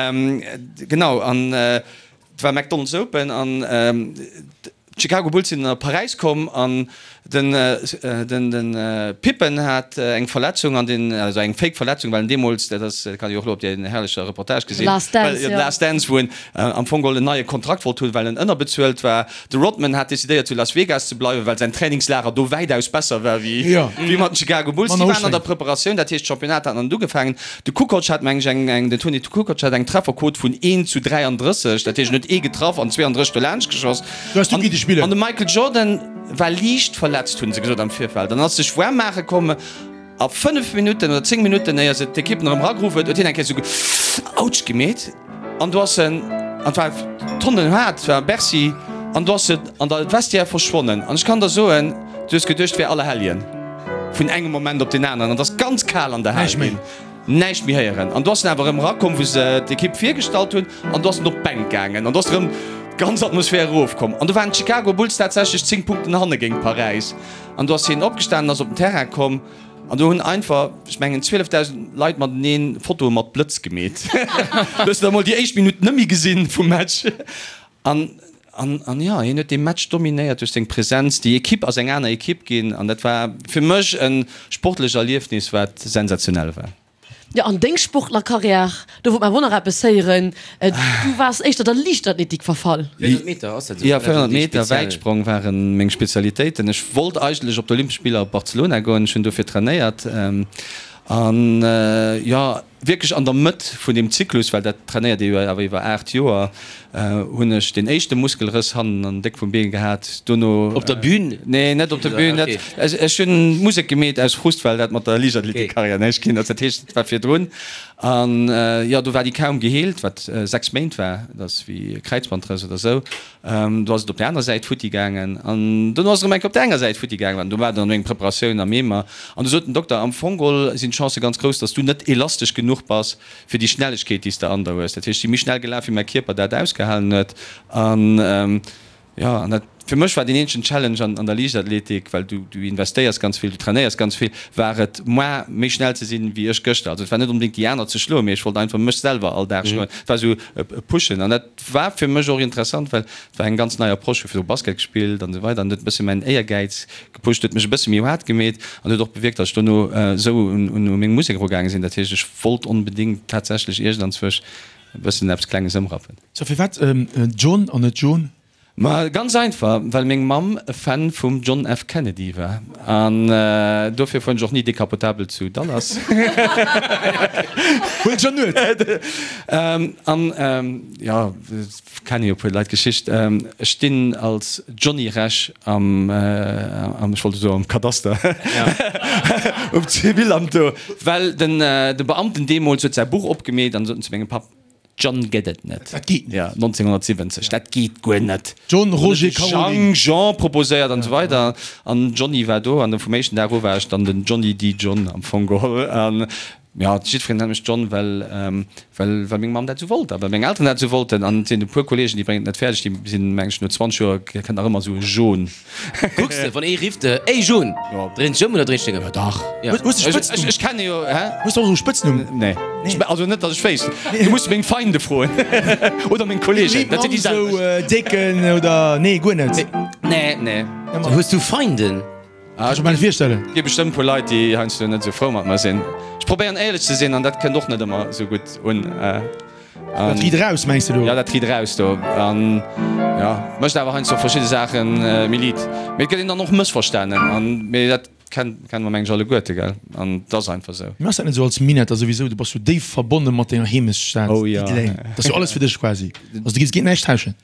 genau, an Et war McDonald's Open an d'Chicago Bulls sinn a Paräis komm an den den Pippen hat eng Verletzung an den also eng fake Verletzung well en deemools, dat ass dat kann ee och elo op där herrlecher Reportage gesinn, Last Dance, jo, Last Dance, wou en am Fong geholl en neie Kontrakt wollt hunn, well en ënnerbezuelt war. De Rodman hat decidéiert zu Las Vegas ze bleiwen, well säin Trainingslager do wäitaus besser war wéi wéi mat den Chicago Bulls. Déi waren an der Preparatioun, dat heescht d'Championnat hat nach net ugefaangen. De Kukoc hat meng ech eng, eng, den Toni Kukoc hat eng Trefferquot vun 1 zu 33, dat heescht en huet ee getraff an 32 dolaanscht geschoss. An, an de Michael Jordan war liicht verletzt, hunn se gesot am Virfeld, an ass sech waarm maache komm a 5 Minutten oder 10 Minutten éier se d'Ekipp erëm erageruff huet, huet hien eng Kéier esou Autsch gemeet an do ass en, an et war tonnen haart, et war Bercy, an do ass en an der Vestiaire verschwonnen. An ech kann der soen, du hues geduecht, et wär Allerhelljen. Vun engem Moment op den aneren, an et ass ganz kal an der Hal ginn, näischt méi héieren. An du ass en awer erëm erakomm, wou se d'Ekipp virgestallt hunn, an du ass en op d'Bänk gaangen, an du ass erëm d'ganz Atmosphär erofkomm. An du waren d'Chicago Bulls tatsächlech 10 Punkten hanne géint Paräis. An du ass hien opgestanen, ass op den Terrain komm, an do hunn einfach, ech mengen, 12.000 Leit mateneen Fotoe mat Blëtz gemeet. Du hues da mol déi éischt Minutt net méi gesinn vum Match. An, an, an jo, hien huet dee Match dominéiert duerch seng Präsenz. Déi Ekipp ass eng aner Ekipp ginn an dat war fir mech e sportlecht Erliefnis, wat sensationell war. Jo, an deng Sportlerkarriär, do wollt mer awer och nach eppes héieren. Du waars éischter der Liichtathletik verfall. 400 Meter, ass dat esou? Jo, 400 Meter Wäitsprong ware meng Spezialitéiten. Ech wollt eigentlech op d'Olympesch Spiller op Barcelona goen, ech hunn dofir trainéiert. An jo, Wierklech an der Mëtt vun deem Zyklus, well dat trainéiert ee jo awer iwwer 8 Joer, hunn ech deen éischte Muskelrëss hannen an déck vum Been gehat. Dono. Op der Bühn? Nee, net op der Bühn. Dat, ech hunn Musek gemeet aus Frust, well dat mat der Liichtathletikkarriär näischt ginn ass. Dat heescht, et war virdrun. An jo, do war déi kaum geheelt, wat 6 Méint war. Dat ass wéi e Kräizbandrëss oder esou. Do ass et op där aner Säit futti gaangen an dono ass et erëm eng Kéier op där enger Säit futti gaangen. An do war dann eng Preparatioun am Eemer an du sot den Dokter, am Fong geholl sinn d'Chancë ganz grouss, dass du net elastesch genuch bass fir déi Schnellegkeet, déi s de an der hues. Dat heescht, ech si méi schnell gelaf, wéi mäi Kierper dat ausgehalen huet. An jo, an dat fir mech war deen eenzegen Challenge an der Liichtathletik, well du du investéiers ganz vill, du trainéiers ganz vill, war et moi méi schnell ze sinn, wéi ech gëschter. Also et war net onbedéngt déi aner ze schloen, mee ech wollt einfach mech selwer all Dag schloen. Et war esou e Pushen an dat War fir mech och interessant, well et war eng ganz nei Approche, hu virdru Basket gespillt an esou weider an huet e bësse mäin Éiergäiz gepusht, huet mech e bësse méi haart gemeet an huet och bewierkt, datt ech dono esou un meng Musek erugaange sinn. Dat heescht, ech wollt onbedéngt tatsächlech iergendanzwousch e bëssen eppes Klenges ëmrappen. So, firwat John an net Joan? Ma ganz einfach, well meng Mamm e Fan vum John F. Kennedy war. An dofir fueren ech och ni decapotabel zu Dallas. Huel John Nuet! An jo, kenne jo e puer Leit d'Geschicht. Ech stinn als Johnny Rech am, ech wollt elo soen am Kadaster, um Zivilamt do, well den Beamten deemools huet säi Buch opgemeet an sot en zu mengem Papp, John gëtt et net. Dat geet net. Ja, 1970, dat geet guer net. John, Roger, Caroline. Jean, Jean proposéiert an esou weider. An Johnny war do an vum éischten Dag u war ech dann den Johnny D. John am Fong geholl. An. Jo, jiddwereen nennt mech John, well, well, well meng Mamm dat esou wollt a well meng Elteren dat esou wollten. An et sinn e puer Kolleegen, déi bréngen et net fäerdeg, déi sinn, meng ech, no 20 Joer kënnt nach ëmmer esou e John. Kucks de, wann ee rifft, Ey John! Jo. Dréins dech ëm oder dréins deng ëm? Jo, dach. Ja. Hues de Spëtznumm? Ech, ech kenne jo, hä? Hues de och esou e Spëtznumm? Nee. Ech, also net, datt ech wéisst. Du muss meng Feinde froen oder meng Kolleegen, dat sinn déi selwecht. Esou Décken oder, nee, guer net? Nee, nee. Hues du Feinden? Ah, ech kann mir virstellen. Et gi bestëmmt puer Leit, déi heiansdo net esou frou mat mer sinn. Ech probéieren éierlech ze sinn an dat kënnt och net ëmmer esou gutt un. Dat riit eraus, mengs de do? Jo, dat riit eraus do. An jo, mécht awer heiansdo verschidde Saache méi liit. Mee et gëtt een dann och mëssverstanen an, mee dat kenne mer meng ech alleguerte, gell? An et ass einfach esou. Mee ass dat net esou als Minetter souwisou? Du bass jo déif verbonne mat denger Heemechtsstad Diddeleng. Dat ass jo alles fir dech quasi. Also du giffs géint näischt tauschen?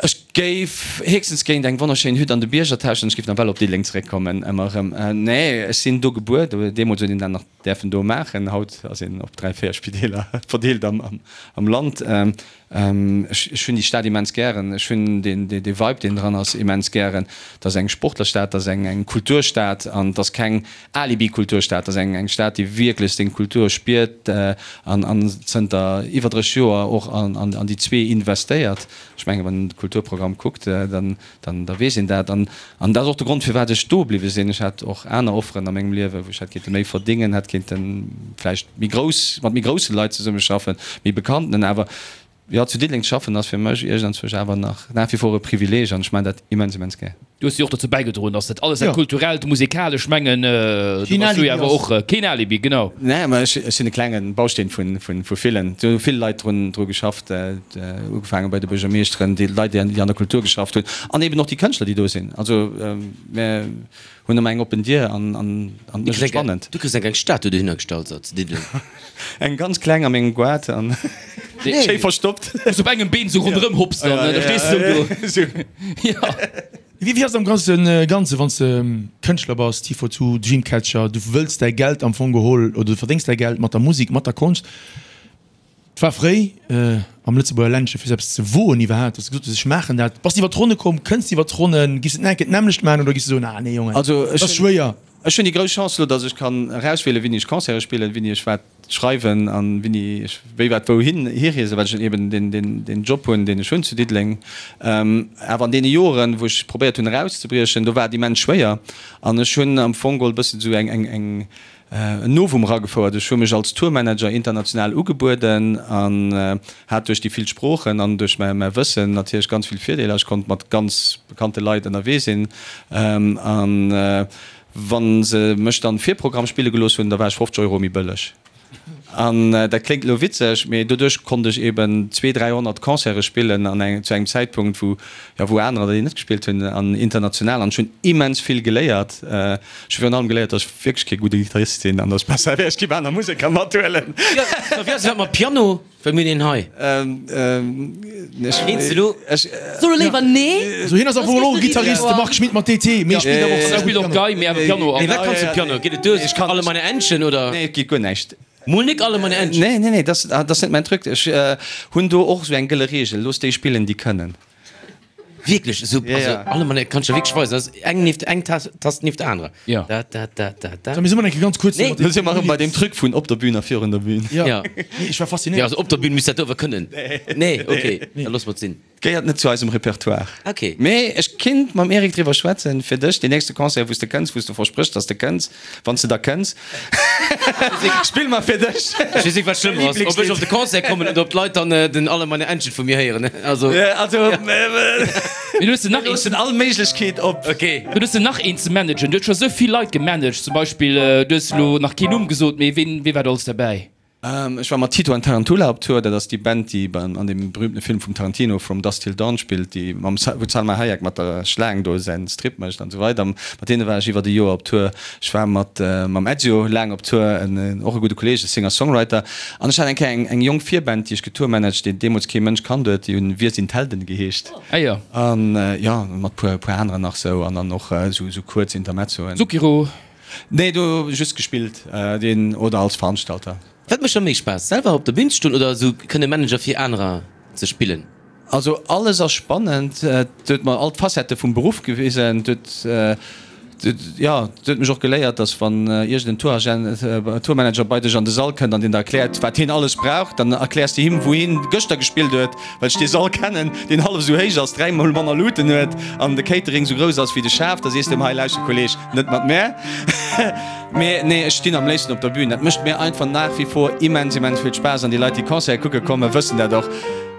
Ech géif héchstens géint eng wonnerschéin Hütt an de Bierger tauschen. Ech géif nawell op Diddeleng zeréckkommen, ëmmer erëm. Nee, ech sinn do gebuer. Deemools huet een dat nach däerfen do maachen. Haut ass een op 3, 4 Spideeler verdeelt am Land. Ech hunn déi Stad immens gären. Ech hunn dee Vibe, deen dran ass, immens gären. Et ass eng Sportlerstad, et ass eng Kulturstad an et ass keng Alibi-Kulturstad. Et ass eng Stad, déi wierklech seng Kultur spiert an zënter iwwer 30 Joer och an déi zwee investéiert. Ech mengen, wann een de Kulturprogramm kuckt, dann, dann, da weess een dat. An, an dat ass och de Grond, firwat ech do bliwwe sinn. Ech hat och aner Offeren a mengem Liewen, wou ech hätt kéinte méi verdéngen, hätt kéinte vläicht méi grouss, mat méi grousse Leit zesummeschaffen, méi bekannten. Awer jo, zu Diddeleng ze schaffen ass fir mech iergendzwousch awer nach nach wie vor e Privileeg an ech maachen dat immens, immens gär. Du hues jo och dozou bäigedroen, dass dat alles, dat Kulturellt, Musikalesch, ech mengen, do bass du jo awer och keen Alibi, genau. Nee, mä ech sinn e klenge Bausteen vu villen. Do hu vill Leit dru geschafft, ugefaange bei de Buergermeeschteren, déi Leit, déi an der Kultur geschafft hunn an eben och déi Kënschtler, déi do sinn. Also mir hunn ëmmer eng oppen Dier an et mécht et spannend. Du kriss eng kleng Statue dohinner gestallt, so zu Diddeleng. Eng ganz kleng a mengem Goart an schéi verstoppt. Wou s op engem Been sou ronderëm hopps dann, da stees de sou do. Jo. Wéi ass et am grousse Ganze wann s de Kënschtler bass, T42, Dreamcatcher, du wëlls däi Geld am Fong geholl oder du verdéngs däi Geld mat der Musek, mat der Konscht. Et war fréi am Lëtzebuerger Ländche fir sou eppes ze woen iwwerhaapt, datt s de gesot hues, ech maachen dat. Bass de iwwer d'Ronne komm? Kënns de iwwer d'Ronnen? Giffs de et nach eng Kéier d'nämmlecht maachen oder giffs de soen, ah nee Jongen, dat ass schwéier? Ech hunn déi grouss Chance elo, datt ech kann erauswielen, wéini ech Concerte spillen, wéini ech wat schreiwen an wéini ech wéi wat wouhin hireesen, well ech eben deen, deen, deen Job hunn, deen ech hunn zu Diddeleng. Awer an deene Joren, wou ech probéiert hunn erauszebriechen, do war et immens schwéier an ech hunn am Fong geholl e bëssen esou eng, eng, eng, En Novum eragefouert. Ech hu mech als Tourmanager international ugebueden an hat duerch déi vill Sproochen an duerch mäi Wëssen natierlech ganz vill Virdeeler. Ech konnt mat ganz bekannte Leit ënnerwee sinn an wa se mech dann Virprogramm spille gelooss hunn, da war ech 50 Euro méi bëlleg. An dat kléngt elo witzeg, mee doduerch konnt ech eben zwee, 300 Concerte spillen an engem, zu engem Zäitpunkt, wou, jo, wou anerer déi net gespillt hunn an international. An ech hunn immens vill geléiert. Ech hu virun allem geléiert, dass ech wierklech kee gudde Gittarist sinn an dass et besser wär, ech géif aner Museker mathuelen. Jo, da wéi ass et mat Piano? Well mir hunn een hei. Eens elo? So lo léiwer nee. So hien ass am Fong och e Gittarist, de Marc Schmitt mat DT, mee spillt awer och Hie spillt och Gei, mee awer Piano. Nee, wat kanns du Piano? Geet et duer? Ech kann Alle meine Entchen, oder? Nee, et geet guer näischt. Mol nik Alle meine Entchen? Nee, nee, nee, dat ass net mäin Truc. Ech hunn do och esou eng gëlle Reegel, Looss déi spillen, déi kënnen. Wierklech esou, Ja, also ja. alle Mann, kann ech der wierklech weisen, dat ass eng nieft eng Tast, Tast nieft der anerer. Ja. Da, da, da, da, da. So, mir si mer eng Kéier ganz kuerz Nee. mat de Lo si mer erëm bei deem Truc vun op der Bühn a virun der Bühn. Ja. Ja. Nee, ech war Ja, faszinéiert. also op der Bühn misst dat do awer kënnen. Nee, okay, da loosse mer et sinn. Gehéiert net zu eisem Repertoire. Okay. Mee ech kinnt mam Eric driwwer schwätzen, fir dech, deen nächste Concert, wou s de kënns, wou s de verspréchs, dass de kënns, Wann s de da kënns, spill mer fir dech. Ech weess net, wat schlëmmer ass, ob ech op de Concert kommen oder ob d'Leit dann den Alle meine Entchen vu mir héieren. Also. Also, Mee du hues nach mir loossen all Méiglechkeet op. Okay. Du hues nach een ze managen. Du hues scho sou vill Leit gemanagt. Zum Beispill, du hues elo nach keen Numm gesot, mee ween, wee war do alles derbäi? Ech war mat Tito and Tarantula op Tour. Dat ass déi Band, déi beim, an deem berühmtene Film vum Tarantino From Dusk Till Dawn spillt, déi mam, wou d'Salma Hayek mat der Schlaang do säin Strip mécht an esou weider. Mat deene war ech iwwert e Joer op Tour. Ech war mat, mam Ezio laang op Tour, en, och e gudde Kolleeg, e Singer-Songwriter. An ech hat eng Kéier eng, eng jonk Virband, déi ech getourmanagt, déi deemools kee Mënsch kannt huet. Déi hunn Wir sind Helden geheescht. Ah jo. An, jo, mat puer, puer aneren nach sou. An dann och esou, esou kuerz Intermezzoen. Zucchero. Nee, do just gespillt, deen oder als Veranstalter. Wat mécht der méi Spaass, selwer op der Bün ze stoen oder esou kënne Manager fir anerer ze spillen? Also alles ass spannend, et huet mer all d'Facettë vum Beruff gewisen, et huet. Jo, et huet mech och geléiert, dass wann iergend en Touragent, Tourmanager bei dech an de Sall kënnt an deen der erkläert, wat hien alles brauch, dann erkläers de him, wou hien gëschter gespillt huet, well ech dee Sall kennen, deen hallef esou héich ass, dräimol manner Luuten huet an de Catering esou grouss ass wéi de Schaf. Da sees de em, Hei, lauschter Kolleg, net mat mär. Mee nee, ech stinn am léifsten op der Bühn. Dat mécht mir einfach nach wie vor immens, immens vill Spaass an déi Leit, déi Concerte kucke kommen, wëssen dat och.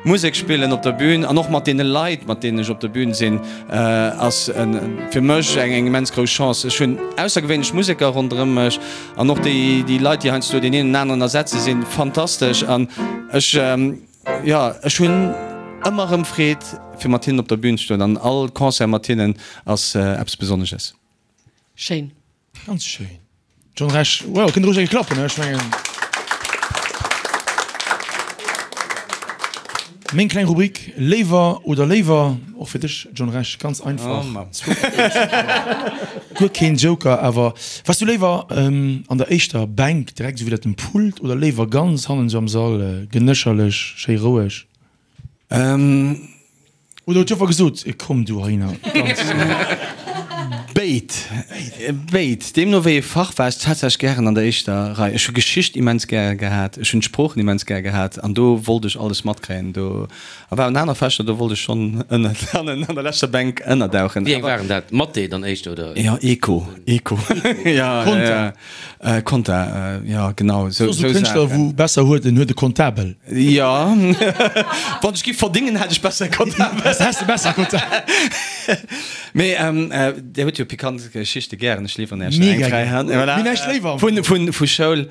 Musek spillen op der Bühn an och mat deene Leit, mat deenen ech op der Bühn sinn, ass fir mech eng immens grouss Chance. Ech hunn aussergewéinlech Museker ronderëm mech an och déi Leit, déi heiansdo deen een an aneren ersetze sinn fantastesch an ech, jo, ech hunn ëmmer erëm Freed fir mat hinnen op der Bühn ze stoen an all Concert mat hinnen ass eppes Besonnesches. Schéin. Ganz schéin. John Rech, wow, kënnt roueg eng klappen, ech mengen. Meng kleng Rubrik Léiwer oder léiwer, och fir dech John Rech, ganz einfach. Guer keen Joker, awer waars du léiwer an der éischter Bänk, direkt esou widder dem Pult, oder léiwer ganz hannen esou am Sall, genécherlech, schéi roueg? Oder huet d'Joffer gesot, komm du heihinner, ganz. Béid, béid. Deemno wéi ee Fach war ech tatsächlech gären an der éischter Rei. Ech hu Geschicht immens gäre gehat, ech hunn d'Sproochen immens gär gehat an do wollt ech alles matkréien. Do a waren aner Fächer, do wollt ech schonn ënnen, hannen an der leschter Bänk ënnerdauchen. Wéi eng waren dat? Mathé dann éischter, oder? Jo, Eco, Eco, jo, jo. Konta, jo genau sou Sou Kënschtler wou besser huet, en huet e Kontabel. Jo, wann ech giff verdingen hätt ech besser e Kontabel. Häss de besser Kontabel. Mee Dir hutt jo pikant Geschichte gären, ech liwweren Iech der eng fräi Hand. Mega gär. Mir näischt léiwer. Vun vu Schoul,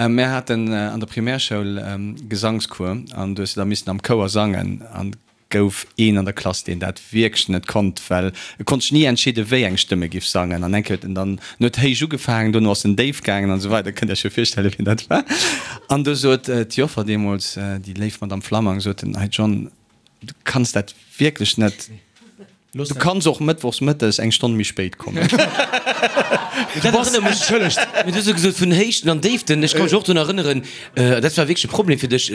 mir haten an der Primärschoul Gesangscours an du hues de da missen am Chouer sangen an gouf een an der Klass, deen dat wierklech net konnt, well e konnt sech ni entscheeden, wéi eng Stëmm e giff sangen. An eng Kéier huet en dann, en huet héich ugefaangen, dono ass en déif gaangen an esou weider. Kënnt Iech jo virstellen, wien dat war. An du sot d'Joffer deemools, déi léif Madame Flammang, sot en, Hey John, du kanns dat wierklech net. Du kanns och mëttwochs mëttes eng Stonn méi spéit kommen. Dat erënnert mech, mee du hues jo gesot vun Héichten an Déiften, ech ka mech och drun erënneren, dat war wierklech e Problem fir dech,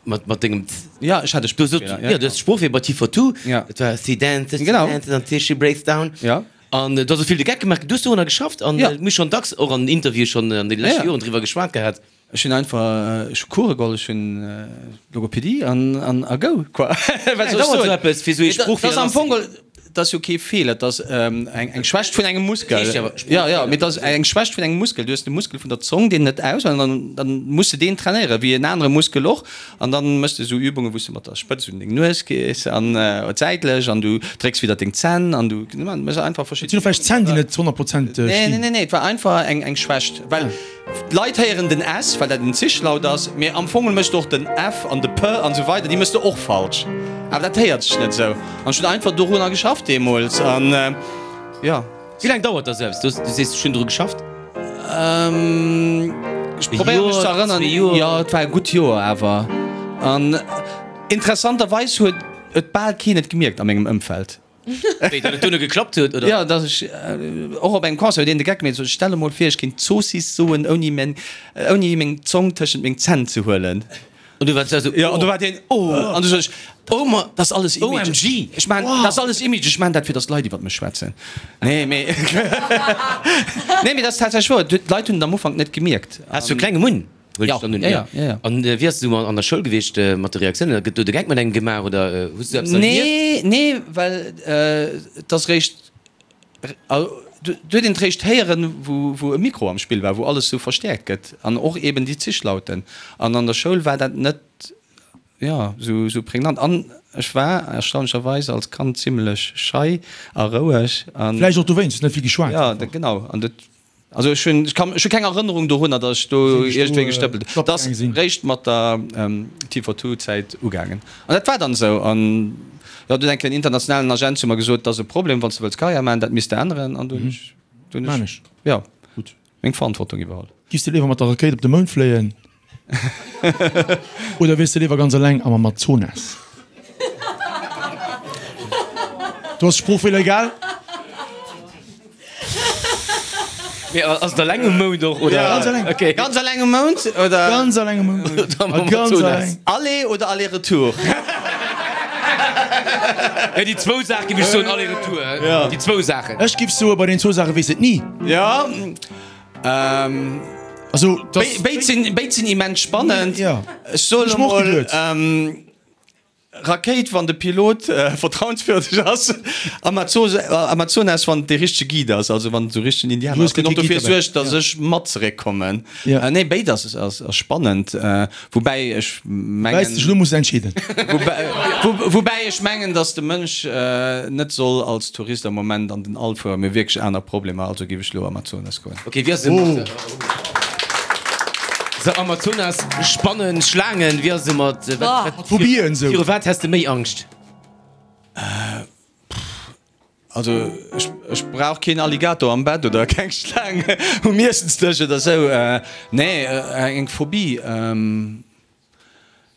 Mat, mat dengem. Ja, ech hat e Sproochfeeler. Ja, du has Sproochfeeler bei T42. Ja. Dat war She dances, she Genau. dances until she breaks down. Ja. An du has och vill de Geck gemaach. Du hues dorunner geschafft an Ja. mir hu schonn dacks och an Interviewe schonn an deene leschte Ja, ja. Joren driwwer geschwat gehat. Ech hunn einfach, ech hu Course geholl, ech hunn Logopädie an, an a go, quoi. Wat soll ech Dauert soen? esou eppes, fir esou ee Et ass Sproochfeeler am Fong lasszeginn? geholl, et ass jo kee Feeler, et ass eng, eng Schwächt vun engem Muskel. Heescht jo awer Ja, ja, Sproochfeeler. mee et ass eng Schwächt vun engem Muskel. Du hues de Muskel vun der Zong, deen net aus, an dann, dann muss de deen trainéieren, wéi en anere Muskel och. An dann méchs de esou Übungen, wou s de mat der Spëtz un deng Nues gees an säitlech an du drécks widder deng Zänn an du méchs einfach Et verschidden. sinn och vläicht Zänn, déi net 100 Prozent Nee, nee, stinn. nee, nee, et war einfach eng, eng Schwächt, well d'Leit héieren den S, well dat en Zischlaut ass, mee am Fong méchs de och den F an de P an esou weider, déi méchs de och falsch, awer dat héiert sech net esou. An ech hunn einfach dorunner geschafft deemools an jo. Wéi laang dauert da sou eppes? Du sees, ech hunn dru geschafft. Ech probéiere mech ze erënneren. Jo, et war e gutt Joer awer. An interessanterweis huet et bal keen et gemierkt a mengem Ëmfeld. Wéi, datt et duerno geklappt huet, oder? Jo, datt ech och op engem Concert huet een de Geck gemeet, sot, stell emol vir, ech kéint Zoossiss soen, ouni meng, ouni meng Zong tëschent meng Zänn ze huelen. An du waars esou, Jo, an du war deen, oh! An du sot ech, oh ma, dat ass alles Image. OMG! Ech maan, dat ass alles Image, ech maan dat fir datt d'Leit iwwert mech schwätzen. Nee, mee, nee, mee dat ass tatsächlech wouer. D'Leit hunn et am Ufank net gemierkt. Has du e klenge Munn? Huel Ja, ech dann un. ja, ja, ja, ja. An wéi ass et esou an der Schoul gewiescht mat de Reaktiounen? Gëtt do de Geck mat engem gemaach oder hues du eppes erlieft? Nee, nee, well et ass réischt, do huet een et réischt héieren, wou, wou e Mikro am Spill war, wou alles esou verstäerkt gëtt an och eben déi Zischlauten. An an der Schoul war dat net, jo, esou, esou prägnant. An ech war erstaunlecherweis als Kand zimlech schei a roueg an. Vläicht och dowéinst, hues net vill geschwat. Ja, genau. An dat Also ech hunn, ech kann, ech hu keng Erënnerung dorunner, datt ech do iergendwéi gestëppelt hunn. Dat ass réischt mat der T42 ugaangen. An dat war dann esou. An jo, du huet eng Kéier en internationalen Agent zu mer gesot, dat ass e Problem, wann s de wëlls Karriär maachen, dat misst de änneren. An du hunn ech, du hunn ech, jo, meng Verantwortung iwwerholl. Giffs de léiwer mat der Rakéit op de Mound fléien oder wiers de léiwer ganz eleng am Amazonas? Do ass Sproochfeeler egal. Mee ass et eleng um Mound och oder? Ganz eleng. Okay. Ganz eleng um Mound oder? Ganz eleng um Mound. Oder am Ganz Amazonas. eleng. Aller oder Aller-Retour? Ja, déi zwou Saache giff ech soen, aller-retour. Déi zwou Saachen. Ech giff soen, bei den zwou Saache weess et ni. Ja. Also, dass. Béid sinn, béid sinn immens spannend. Ja. Ech soen Ech moch emol, geduet. Rakéit, wann de Pilot vertrauenswürdeg ass, Amazonas, wann et dee richtege Guide ass, also wann et esou richtegen Indianer ass, deen och dofir suergt, datt ech mat zeréckkommen. Nee, béid ass spannend, woubäi ech mengen. Woubäi s dech elo muss entscheeden. Woubäi ech mengen, datt de Mënsch net soll als Tourist am Moment an den All fueren, mir hu wierklech aner Problemer, also géif ech elo Amazonas goen. Ok, wéi ass et mat. Sou Amazonas, Spannen, Schlaangen, wéi ass et mat, wat, wat, Phobien sou. Viru wat häss de méi Angscht? Also ech, ech brauch keen Alligator am Bett oder keng Schlaang um Iessensdësch oder sou. Nee, eng Phobie.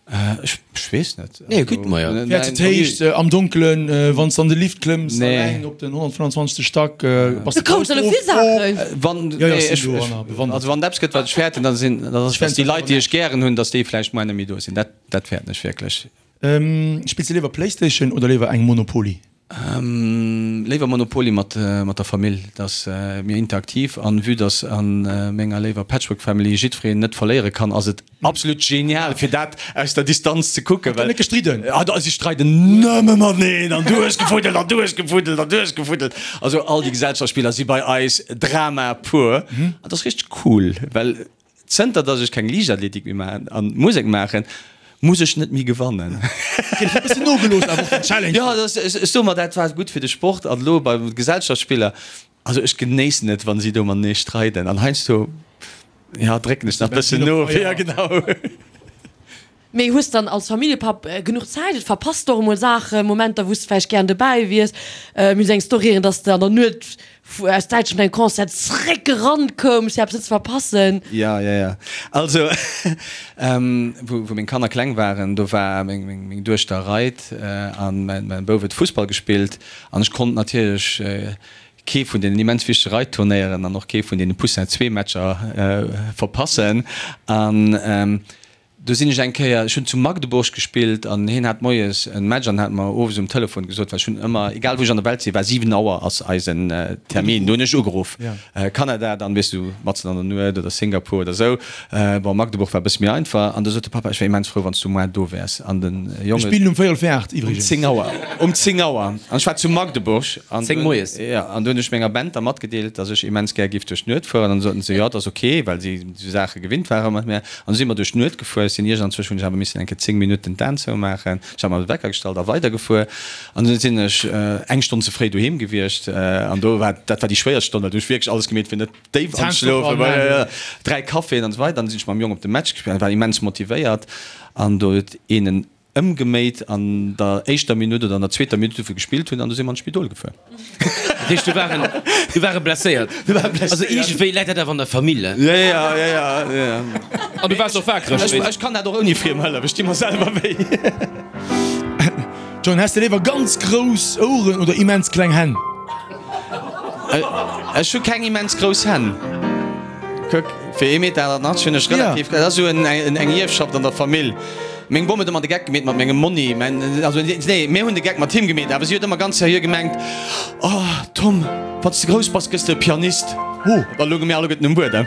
Ech weess net. Nee, gutt, ma jo. Fäerts de d'Héicht, am Donkelen, wann s de an de Lift klëmms, alleng op den 125. Stack, bass de Du kouns elo vill Saachen. Wann, Jo, jo, nee, ech ech, sinn do an bewandert. also wann et eppes gëtt, wat ech fäerten, da sinn, dann ass et, dass déi Leit, déi ech gären hunn, dass déi vläicht muer net méi do sinn. Dat, dat fäerten ech wierklech. Spills de léiwer Playstation oder léiwer eng Monopoly? Léiwer Monopoly mat mat der Famill, dat ass méi interaktiv an vue dass an menger léiwer Patchwork Family jiddwereen net verléiere kann, ass et absolut genial fir dat aus der Distanz ze kucken, well net gestridden. Ah da si streiden nëmme mateneen an du hues gefuddelt an du hues gefuddelt an du hues gefuddelt. Also all déi Gesellschaftsspiller si bei eis Drama pur an dat ass richteg cool, well Zënter dass ech keng Liichtathletik méi maachen an Musek maachen, muss ech net méi gewannen. Okay, dat huet e bëssen nogelooss awer och den Challenge. Jo, dat ass, ech soe mer, dat war gutt fir de Sport an elo bei Gesellschaftsspiller, also ech genéissen et, wann si do matenee streiden an heiansdo, jo, drécken ech nach e bëssen no, jo genau. Mee hues dann als Familljepapp genuch Zäit? Et verpasst de och emol Saachen, Momenter wou s de vläicht gären dobäi wiers. Mir hunn eng Story héieren, dass de an der Nuet aus Däitschland vun engem Concert zeréck gerannt koums fir eppes net ze verpassen. Jo, jo, jo. Also wou wou meng Kanner kleng waren, do war meng meng meng Duechter reit an mäin mäin Bouf huet Fussball gespillt an ech konnt natierlech kee vun deenen immens wichtege Reitturnéieren an och kee vun deene Poussin Zwee-Matcher verpassen an Do sinn ech eng Kéier, ech hunn zu Magdeburg gespillt an hien hat moies en Match an hat mer owes um Telefon gesot, well ech hunn ëmmer, egal wou ech an der Welt sinn, war 7 Auer ass eisen Termin, do hunn ech ugeruff, Kanada, dann weess du, matzen an der Nuet oder Singapur oder esou. Bon, Magdeburg war e bësse méi einfach an do sot de Papa, ech wär immens frou, wann s du moar do wäers an den Jong. Mir spillen um véierel vir 8 iwwregens. Um 10 Auer, um 10 Auer an ech war zu Magdeburg an 10 moies. Jo, an do hunn ech menger Band da matgedeelt, datt ech immens gär giff duerch d'Nuet fueren an du soten se, jo, et ass ok, well si esou Saache gewinnt ware mat mir. An du si mer duerch d'Nuet gefuer. Ech sinn iergendzwousch hunn ech awer missen eng Kéier 10 Minutten d'Aen zoumaachen. Ech hat mer de Wecker gestallt a weidergefuer. An du sinn ech eng Stonn ze fréi doheem gewiescht. An do war, dat war déi schwéierst Stonn, well do hu ech wierklech alles gemeet fir net déif anzeschlofen. 3 Caféen an esou weider. An du sinn ech mam Jong op de Match gespillt an war immens motivéiert. An do huet een en Ëmgeméit an der éischter Minutt oder an der zweeter Minutt, wou wir gespillt hunn, an du si mer an d'Spidol gefuer. Dat heescht, do war en, do war e blesséiert. Do war e blesséiert. Also iergendwéi läit dat awer an der Famill, he? Jo, jo, jo, jo, jo. An du waars och waakreg, Ech, ech kann dat och ouni friem Hëllef, ech di mer selwer wéi. John, häss de léiwer ganz grouss Oueren oder immens kleng Hänn? Ech hu keng immens grouss Hänn. Kuck, fir ee Meter 88 hunn ech relativ, dat ass esou eng Ierfschaft an der Famill. Meng Bom huet ëmmer de Geck gemeet mat mengem Monni, mäin, also nee, mir hunn de Geck mat him gemeet, awer si huet ëmmer ganz seriö gemengt, Oh Tom, wann s de grouss bass, gëss de e Pianist. Oh. Da lounge mir alleguerten um Buedem.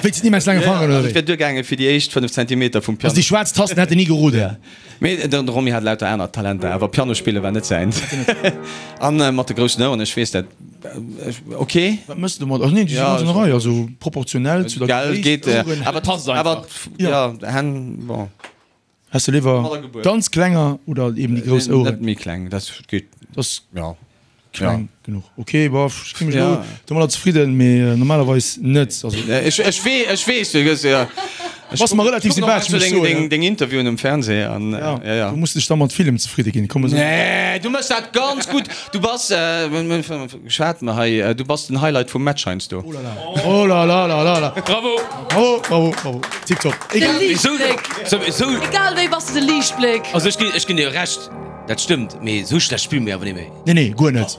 Wéinst den immens laange Fangeren, oder wéi? Et wier duergaangen fir déi éischt 5 Zentimeter vum Piano. Also déi schwaarz Tasten hätt en ni geroden. Mee de Romy hat lauter aner Talenter, awer Piano spille war net säins. An mat de groussen Oueren, ech weess dat, ok. Wat mëss de domat? Ach nee, déi si ganz an der Rei, also proportionell zu der Gell, Gréisst, geet, Oueren. awer Passt einfach. awer jo, Hänn, bon. Häss de léiwer ganz klenger oder eben déi grouss Oueren? Net méi kleng, dat geet, Dat jo. Kleng genuch. Ok, bof, ech gi mech elo domadder zefridden, mee normalerweis net. Also. Ech, ech wee, ech weess, du gëss, jo. Bass mer relativ sympathesch, muss ech soen. Deng, deng Interviewen um Fernseh an, ja, ja, ja. Du muss dech da mat villem zefridde ginn, komm esou. Nee, du méchs dat ganz gutt. Du bass, geschwat mer hei, du bass den Highlight vum Match heiansdo. Oh la la, oh la la la la la. Bravo! Bravo, bravo, bravo. Tiptop. De Liichtbléck. Egal wéi bass de de Liichtbléck. Also ech ginn, ech ginn dir Recht, dat stëmmt, mee esou schlecht spille mir awer net méi. Nee, nee, guer net.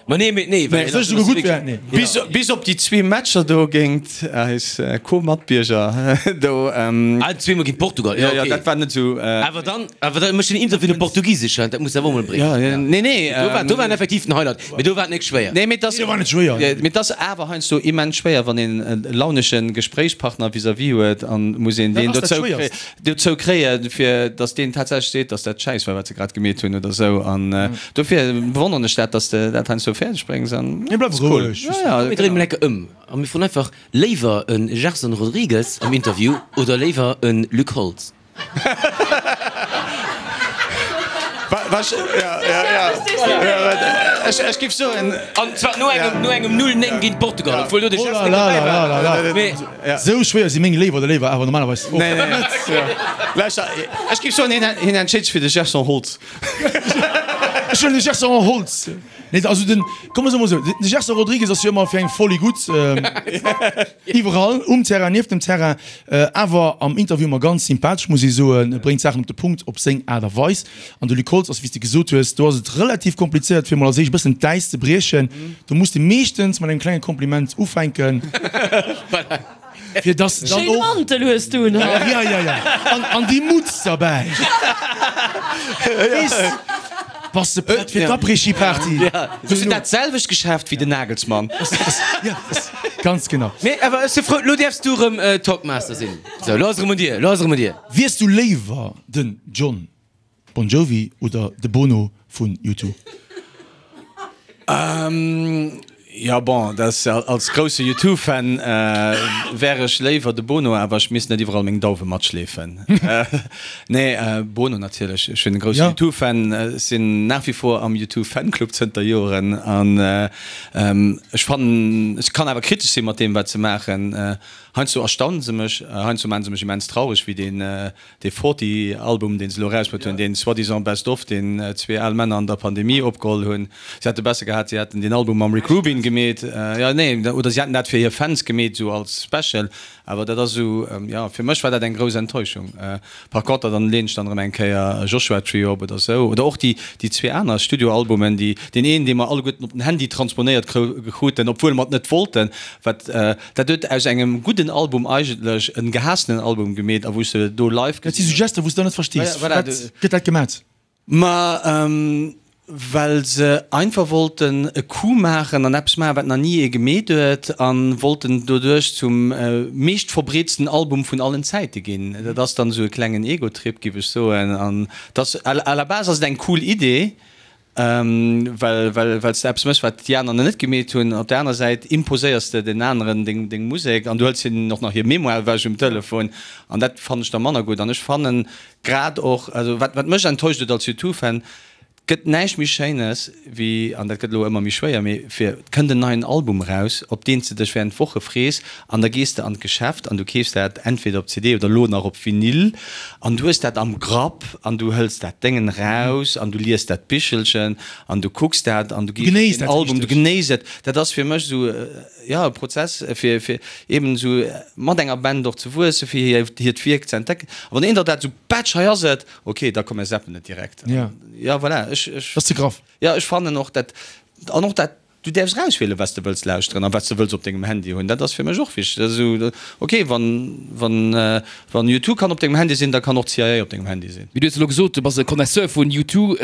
Ma nee, mee nee, well Soll ech souguer gutt wär? Nee. Bis, bis op déi zwee Matcher do géint eis Co-Matbierger do. Ah, zweemol géint Portugal, jo, jo, dat war net esou. Awer dann, awer da mécht den Interview op Portugisesch, dat muss awer och mol bréngen. Jo, jo, nee, nee. Do war, do war en effektiv den Highlight, mee do war et net schwéier. Nee, mee et ass, Do war net schwéier. Mee et ass awer heiansdo immens schwéier, wann een e launesche Gespréichspartner vis-à-vis huet an muss een deen Dat ass dat dozou Schwéierst. dozou kréien, fir datt deen tatsächlech seet, datt dat Schäiss war, wat se grad gemeet hunn oder esou. An dofir bewonneren ech dat, datt s de dat heiansdo fäerdeg bréngs. An Mir bleiwe ass cool. roueg. Ja, ja, Komm mir dréinen mol enke ëm a mir froen einfach, Léiwer e Gerson Rodrigues am Interview oder léiwer e Luc Holtz? Ech giff soen. An zwar no engem, no engem 0, 9 géint Portugal, obwuel do de Gerson net dobäi war. Mee. Sou schwéier si meng Léiwer oder Léiwer awer normalerweis och net. Lauschter, ech giff soen, hien entscheet sech fir de Gerson Holtz. Ech huelen de Gerson Holtz. Nee, also den, komm mer soe mol esou, de Gerson Rodrigues ass jo ëmmer fir eng Folie gutt, iwwerall, um Terrain, nieft dem Terrain, awer am Interview ëmmer ganz sympathesch, muss ee soen, bréngt d'Saachen op de Punkt op seng Aart a Weis. An de Luc Holtz ass, wéi s de gesot hues, do ass et relativ komplizéiert, fir mol als éischt e bëssen d'Äis ze briechen. Do muss de meeschtens mat engem klenge Kompliment ufänken, fir dass de dann Schéine och. Mantel hues du un haut. Ja, ja, ja. An, an déi Mutz derbäi. Weess, bass de prett fir d'Après-Ski-Party? Hues du dat selwecht Geschäft wéi den Nagelsmann? Ja, ganz genau. Mee awer ech si frou, lo däerfs du erëm Talkmaster sinn. Sou, lo ass erëm un dir, lo ass erëm un dir. Wiers du léiwer den Jon Bon Jovi oder de Bono vun U2? Jo bon, dat ass als grousse U2-Fan wär ech léiwer de Bono, awer ech misst net iwwerall meng Dauwe matschleefen. Nee, Bono natierlech. Ech sinn e grousse U2-Fan, ech sinn nach wie vor am U2-Fanclub zënter Joren an ech fannen, ech kann awer kritesch si mat deem wat se maachen. Heiansdo erstaunen se mech, heiansdo maachen se mech immens traureg, wéi deen Dee Forty Album deen se elo erausbruet hunn, deen soi-disant Best Of, deen zwee al Männer an der Pandemie opgeholl hunn. Se hätte besser gehat, se hätten deen Album mam Rick Rubin gemeet, jo nee, oder se hätten dat fir hir Fans gemeet, esou als Special. Awer dat ass esou, jo, fir mech war dat eng grouss Enttäuschung. Par conter dann leen ech dann erëm eng Kéier Joshua Tree op oder esou, oder och déi déi zwee aner Studioalbumen, déi deen een, dee mer alleguerten op den Handy transponéiert kruten, obwuel mer et net wollten, wat Dat huet aus engem gudden Album eigentlech en gehaassenen Album gemeet a wou s de do live Dat si sou Gester wou s de dann net verstees, firwat gëtt dat gemat? Ma well se einfach wollten e Coup maachen an eppes maachen wat nach ni ee gemeet huet a wollten doduerch zum meescht verbreetsten Album vun allen Zäite ginn. Dat ass dann esou e klengen Ego-Trip giff ech soen an dass à la base ass et eng cool Idee, Well well s de eppes méchs, wat déi aner nach net gemeet hunn. Op der aner Säit imposéiers de den aneren deng deng Musek an du hëls hinnen och nach hir Mémoire ewech um Telefon an dat fannen ech da manner gutt. An ech fannen grad och, also wat wat mech enttäuscht huet als U2-Fan, et gëtt näischt méi Schéines wéi, an dat gëtt elo ëmmer méi schwéier, mee fir et kënnt en neien Album eraus, op deen s de dech während Woche frees an da gees de an d'Geschäft an du keefs dat entweder op CD oder elo nach op Vinyl an du hues dat am Grapp an du hëls dat Déngen eraus an du lies dat Bichelchen an du kucks dat an du gees op den Album, du genéiss et. Dat ass fir mech esou, jo, e Prozess fir fir eben esou mat enger Band och ze wuessen, fir hir hiert Wierk ze entdecken. A wann een der dat esou, Batsch, hei ass et, ok, da komm mir zappen et direkt. Jo, voilà, ech, ech. Dat ass ze graff. Jo, ech fannen och dat, an och dat Du däerfs erauswielen, wat s de wëlls lauschteren a wat s de wëlls op dengem Handy hunn. Dat ass fir mech och wichteg. Dat ass esou, ok, wann, wann, wann U2 kann op dengem Handy sinn, da kann och d'CIA op dengem Handy sinn. Mee du hues elo gesot, du bass e Connaisseur vun U2,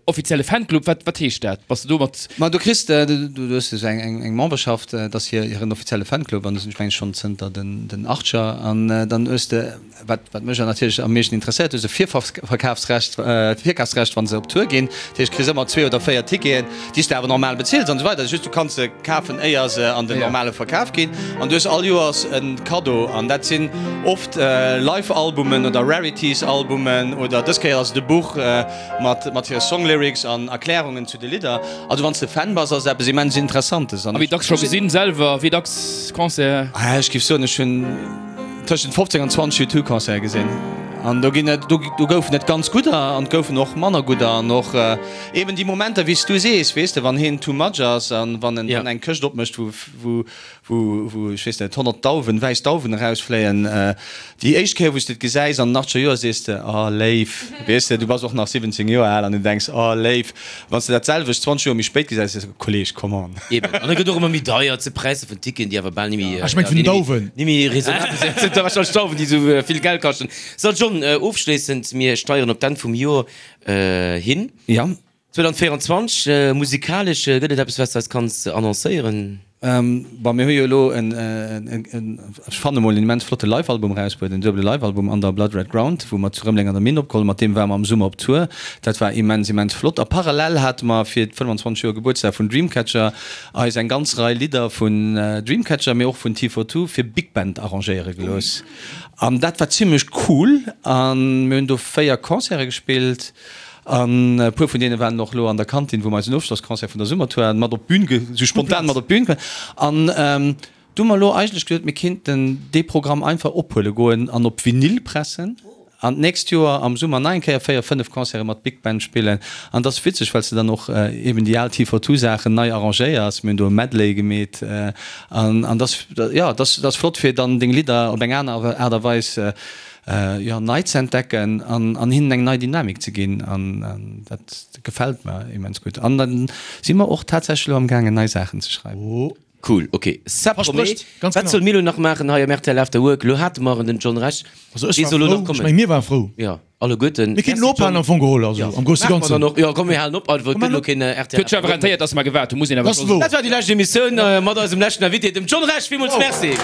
offizielle Fanclub. Wat, wat heescht dat? Bass de do mat. Ma du kriss, du, du hues esou eng, eng, eng Memberschaft, dat ass hir, hiren offizielle Fanclub an do sinn ech mengen ech schonn zënter den, den Achtscher an dann hues de, Wat wat mech natierlech am meeschten interesséiert, hues e Virverkafsrecht, Virkafsrecht wann se op Tour ginn. Dat heescht, kriss ëmmer zwee oder véier Ticketen, déi s de awer normal bezills an esou weider. Just du kanns se kafen éier se an den normale Verkaf ginn. An du hues all Joers e Kaddo an dat sinn oft Live-Albumen oder Rarities-Albumen oder dës Kéier ass et e Buch mat mat hire Song-Lyrics an Erklärungen zu de Lidder. Also wann s de Fan bass, ass et eppes immens Interessantes. A wéi dacks scho gesinn selwer? Wéi dacks Concert? Ech géif soen, ech hunn. Tëschent 15 an 20 U2-Concerte gesinn. An do ginn et, do goufen et ganz gudder an et goufen och manner gudder an och eben déi Momenter, wéi s du sees, weess de, wann hien too much ass an wann en eng Këscht opmécht, wou, wou, wou, wou, ech weess net, 100 Dauwen, wäiss Dauwen erausfléien. Déi éischt Kéier, wou s de et gesäis an den achtzeger Joer, sees de, Oh, léif. Weess de, du bass och nach 17 Joer al an du denks, Oh, léif. Wann s de dat selwecht 20 Joer méi spéit gesäis, sees de, Kolleg, come on. Eben. An et gëtt och ëmmer méi deier, et si Präisser vun Ticketen, déi awer bal ni méi, Ech meng vun den Dauwen. ni méi raisonnabel sinn. Et sinn warscheinlech d'Dauwen, déi esou vill Geld kaschten. So, John, ofschléissend, mir steieren op d'Enn vum Joer hin. Ja. 2024, musikalesch, gëtt et eppes, wat s de eis kanns annoncéieren? Bon, mir hu jo elo en, ech fanne mol, en immens flotte Live-Album erausbruet, en duebele Live-Album Under Blood Red Ground, wou mer zu Rëmeleng an der Minn opgeholl hunn. Mat deem ware mer am Summer op Tour. Dat war immens, immens flott. A parallel hate mer fir d'25 Joer Gebuertsdag vun Dreamcatcher eis eng ganz Rei Lidder vun Dreamcatcher, mee och vun T42 fir Big Band arrangéiere gelooss. An dat war zimmlech cool. A mir hunn do 4 Concerte gespillt. An e puer vun deene waren och elo an der Kantin, wou mer eisen Ofschlossconcert vun der Summertour haten, mat op d'Bün, sou spontan mat op d'Bün komm. An du hu mer elo eigentlech geduet, mir kéinten dee Programm einfach ophuele goen an op Vinyl pressen an d'nächst Joer am Summer nach eng Kéier 4, 5 Concerte mat Big Band spillen. An et ass witzeg, well s de dann och eben déi al T42-Saachen nei arrangéiers. Mir hunn do e Medley gemeet an et ass, jo, et ass flott, fir dann deng Lidder op eng aner Aart a Weis jo, nei ze entdecken an an hinnen eng nei Dynamik ze ginn an dat gefält mer immens gutt. An da si mer och tatsächlech elo am gaangen nei Saachen ze schreiwen. Cool, ok, ça promet. Wat solle mir elo nach maachen hei am rtl After Work? Elo hate mer en, den John Rech, Also ech war frou, ech meng mir ware frou. Jo, alleguerten. Mir kéinten elo ophalen am Fong geholl, also am grousse Ganzen. Jo, komm mir halen op einfach, et gëtt elo keen rtl Huet sech awer rentéiert, dass mer gewaart hunn, muss een awer scho soen. Dat war déi lescht Emissioun mat eisem leschten Invité, dem John Rech. Villmools Merci.